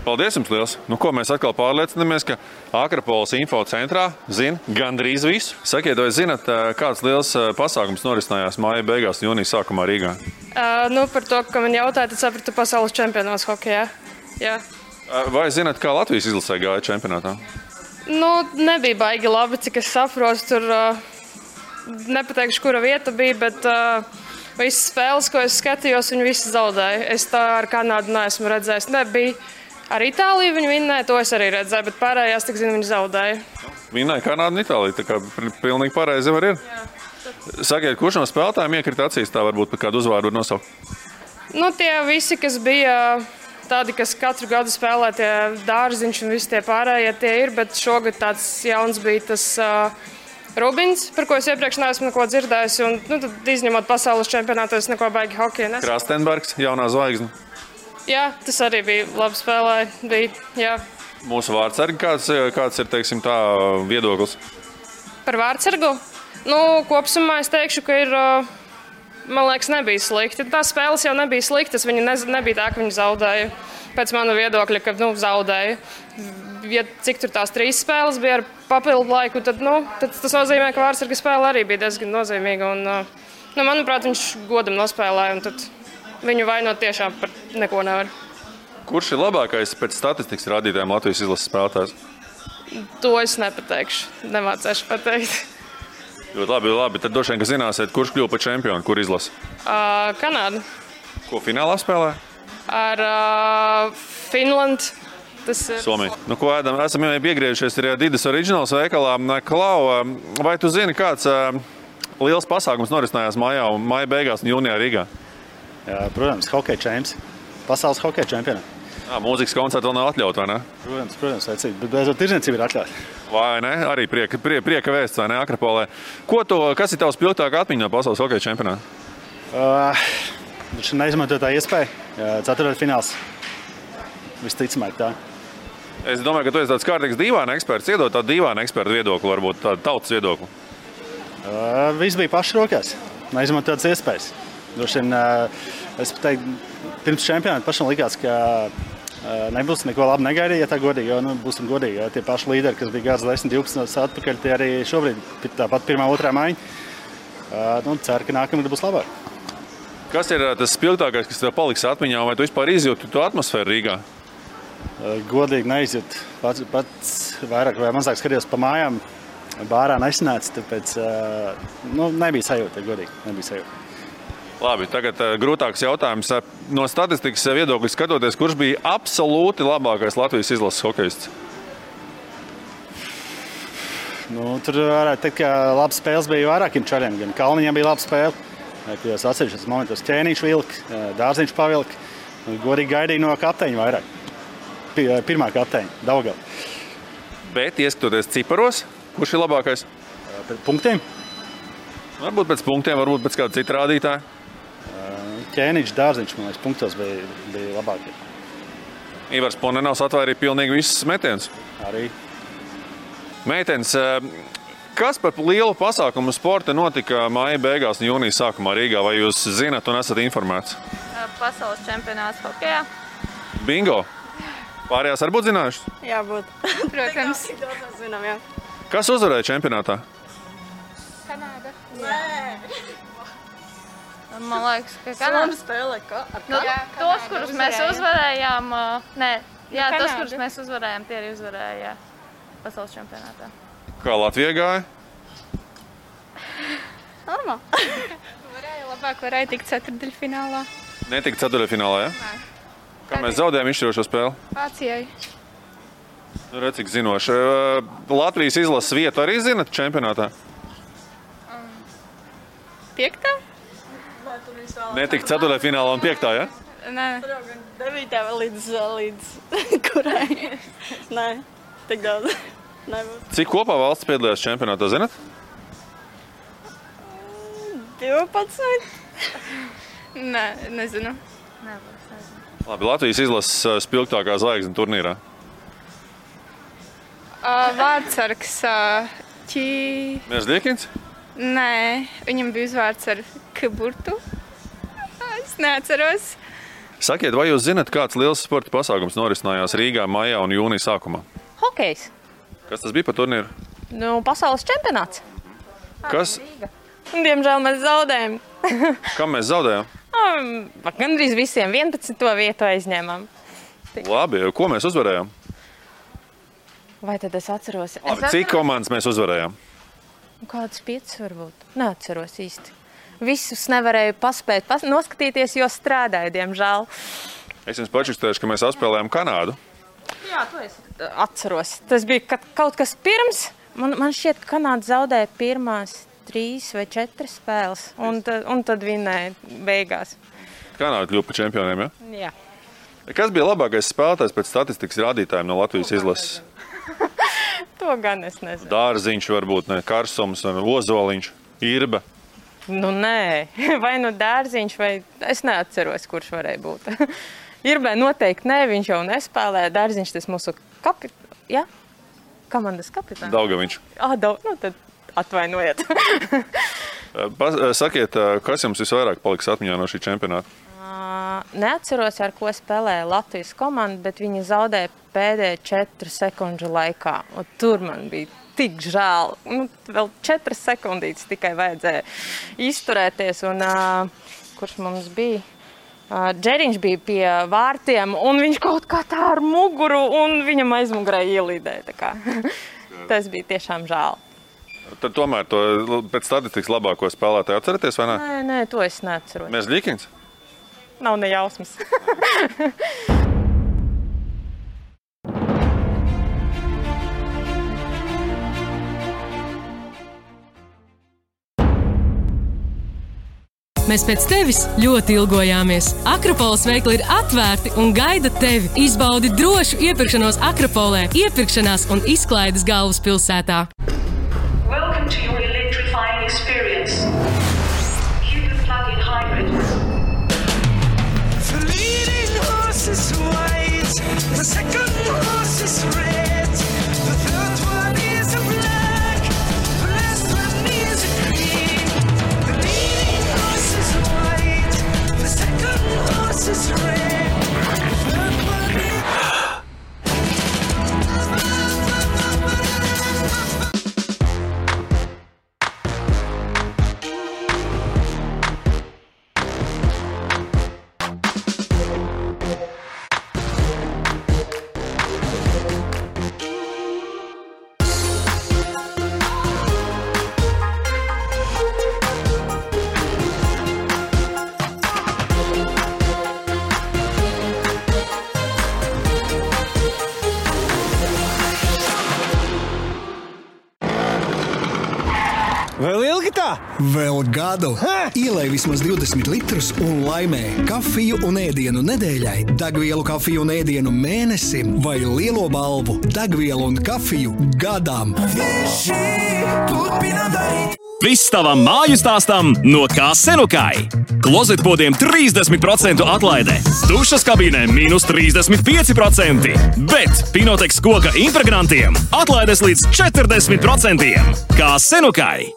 Paldies jums liels! Nu, ko mēs atkal pārliecinamies, ka Akropoles info centrā zina gandrīz visu. Sakiet, vai zinat, kāds liels pasākums norisinājās māja beigās un jūnija sākumā Rīgā? Par to, ka man jautāja, tad sapratu pasaules čempionāts hokejā. Jā. Vai zinat, kā Latvijas izlasē gāja čempionātā? Nebija baigi labi, cik es saprotu. Tur nepateikšu, kura vieta bija, bet visas spēles, ko es skatījos, viņi visi zaudēja. Es tā ar Kanādu neesmu redzējis. Nebija. Ar Itāliju viņi vinnēja, to es arī redzēju, bet pārējās, tik zinu, viņi zaudēja. Vinnēja Kanādu un Itāliju, tā kā pilnīgi pareizi var ir. Sakiet, kurš no spēlētājiem iekrita acīs, tā varbūt par kādu uzvārdu var nosaukt? Tie visi, kas bija tādi, kas katru gadu spēlē, tie Dārziņš un visi tie pārējie tie ir, bet šogad tāds jauns bija tas Rubins, par ko es iepriekš neesmu neko dzirdējis, un tad izņemot pasaules čempionātu, es neko baigi hokeju nesaku. Krastenbergs, jaunā zvaigzne. Jā, tas arī bija labi spēlēja. Mūsu vārdsargi, kāds ir, teiksim, tā viedoklis? Par vārdsargu? Kopsumā es teikšu, ka ir, man liekas, nebija slikti. Tās spēles jau nebija sliktas, viņi nebija tā, ka viņi zaudēja. Pēc mana viedokļa, ka zaudēja. Ja cik tur tās 3 spēles bija ar papildu laiku, tad tas nozīmē, ka vārdsarga spēle arī bija diezgan nozīmīga. Un, manuprāt, viņš godam nospēlēja, un tad viņu vainot tiešām par neko nevar. Kurš ir labākais pēc statistikas rādītājiem Latvijas izlases spēlētājs? To es nepateikšu, nemācēšu pateikt. Ļoti labi. Tad droši vien, ka zināsiet, kurš kļuva par čempionu, kur izlasa? Kanāda. Ko finālā spēlē? Ar Finlandu. Somija. Ko ēdam? Esam jau piegriežušies arī Didas Originals veikalā. Klau, vai tu zini, kāds liels pasākums norisinājās māja beigās un jūnijā Rīgā? Jā, protams, hokeja čempions. Pasaules hokeja čempionā. Mūzikas koncerti vēl nav atļauti, vai ne? Protams, vecīgi. Bet beidzot tirdzniecība ir atļauta. Vai ne? Arī prieka vēsts, vai ne, Akropolē. Kas ir tavs spilgtākā atmiņa no pasaules hokeja čempionāta? Viņš neizmantoja tā iespēja. Ceturtfināls. Visticamāk tā. Es domāju, ka tu esi tāds kārtīgs dīvāna eksperts. Iedod tādu dīvāna ekspertu viedokli, varbūt tādu tautas viedokli. Viss bija paši rokās. Neizmantoja tādas iespējas. Droši vien, es teiktu, pirms čempionāta pašam likās, ka nebūs neko labi negaidīt, ja tā godīgi, jo būsim godīgi. Jo tie paši līderi, kas bija gads 10-12 atpakaļ, tie arī šobrīd tāpat pirmā, otrā maiņa. Ceru, ka nākamgad būs labāk. Kas ir tas spilgtākais, kas tev paliks atmiņā, vai tu vispār izjūti to atmosfēru Rīgā? Godīgi neizjūtu. Pats vairāk vai mazāk skatījos pa mājām, bārā nesanāca, tāpēc nebija sajūta, godīgi, nebija sajūta. Labi, tagad grūtāks jautājums. No statistikas viedokļa skatoties, kurš bija absolūti labākais Latvijas izlases hokejists? Tur varētu teikt, ka labas spēles bija vairākiem čariem. Gan Kalniņam bija laba spēle, kādās atsevišķos momentos Ķēniņš vilka, Dārziņš pavilka. Godīgi gaidīja no kapteiņa vairāk. Pirmā kapteiņa, Daugava. Bet, ieskatoties ciparos, kurš ir labākais? Pēc punktiem? Varbūt pēc punktiem, varbūt pēc kāda cita rādītāja. Ķēniņš, Dārziņš, man liekas, punktos bija labākie. Ivars Ponenovs atvairīja pilnīgi visus metienus. Arī. Meitenes, kas par lielu pasākumu sporta notika māja beigās un jūnija sākumā Rīgā? Vai jūs zinat un esat informēts? Pasaules čempionāts hokejā. Bingo! Pārējās varbūt zinājušas? Jā, būt. Protams. Zinām, jā. Kas uzvarēja čempionātā? Kanāda. Nē. Man liekas, ka Kanāda spēlē ar tos, kurus mēs uzvarējām, tos, kurus mēs uzvarējām, tie arī uzvarēja pasaules čempionātā. Kā Latvija gāja? Normāli. Varēja tikt ceturtdaļfinālā. Netika ceturtdaļfinālā, ja? Nē. Kā mēs zaudējām izšķirošo spēli? Vācijai. Redz, cik zinoši. Latvijas izlases vietu arī zinat čempionātā? 5. Netika ceturtdaļfinālā un 5. ja? Nē. 9. līdz kurai? Nē, tik daudz. Cik kopā valsts piedalījās čempionātā, zinat? 12. Nē, nezinu. Labi, Latvijas izlases spilgtākā zvaigzne turnīrā. Vārdsargs Merzliekins? Nē, viņam bija uzvārds ar Kaburtu. Es neatceros. Sakiet, vai jūs zinat, kāds liels sporta pasākums norisinājās Rīgā maijā un jūnija sākumā? Hokejs. Kas tas bija par turnīru? Nu, pasaules čempionāts. Kas? Diemžēl mēs zaudējam. Kam mēs zaudējām? Gandrīz visiem 11. vietu aizņēmām. Labi, ko mēs uzvarējām? Vai tad es atceros? Cik komandas mēs uzvarējām? Kādas 5 varbūt? Neatceros īsti. Visus nevarēju paspēt noskatīties, jo strādāju, diemžēl. Es jums pačukstēšu, ka mēs apspēlējām Kanādu. Jā, to es atceros. Tas bija kaut kas pirms. Man šķiet, ka Kanāda zaudēja pirmās 3 vai 4 spēles, un tad vinēja beigās. Kanāda kļuva par čempioniem, ja? Jā. Kas bija labākais spēlētājs pēc statistikas rādītājiem no Latvijas izlases? To gan es nezinu. Dārziņš varbūt, ne? Karsums, Ozoliņš, Irba. Nu nē, vai nu Dārziņš, vai es neatceros, kurš varēja būt. Irbē noteikti nē, viņš jau nespēlēja. Dārziņš tas mūsu komandas kapitāns. Daugaviņš. Nu tad atvainojiet. Sakiet, kas jums visvairāk paliks atmiņā no šī čempionāta? Neatceros, ar ko spēlēja Latvijas komanda, bet viņi zaudēja pēdējā 4 sekundžu laikā. Un tur man bija tik žēl. Vēl 4 sekundītes tikai vajadzēja izturēties. Un, kurš mums bija? Džeriņš bija pie vārtiem, un viņš kaut kā tā ar muguru, un viņam aizmugurē ielīdēja. Tas bija tiešām žēl. Tad tomēr to pēc statistikas labāko spēlētāju atceraties, vai ne? Nē, to es neatceros. Mēs Līkins? Nav ne jausmas. Mēs pēc tevis ļoti ilgojāmies. Akropoles veikli ir atvērti un gaida tevi. Izbaudi drošu iepirkšanos Akropolē, iepirkšanās un izklaides galvaspilsētā. Welcome to your electrifying experience. Hidden plug-in hybrid. The leading horse is white, the second horse is red, the third one is a black, the last one is a green. The leading horse is white, the second horse is red, the third one is... Vēl ilgi tā? Vēl gadu. Ielej vismaz 20 litrus un laimē kafiju un ēdienu nedēļai, degvielu kafiju un ēdienu mēnesim vai lielo balvu degvielu un kafiju gadam. Viss tavam māju stāstam no Kā-Senukai. Klozetpodiem 30% atlaide, dušas kabīnēm -35%, bet Pinoteks koka impregnantiem atlaides līdz 40%. Kā-Senukai!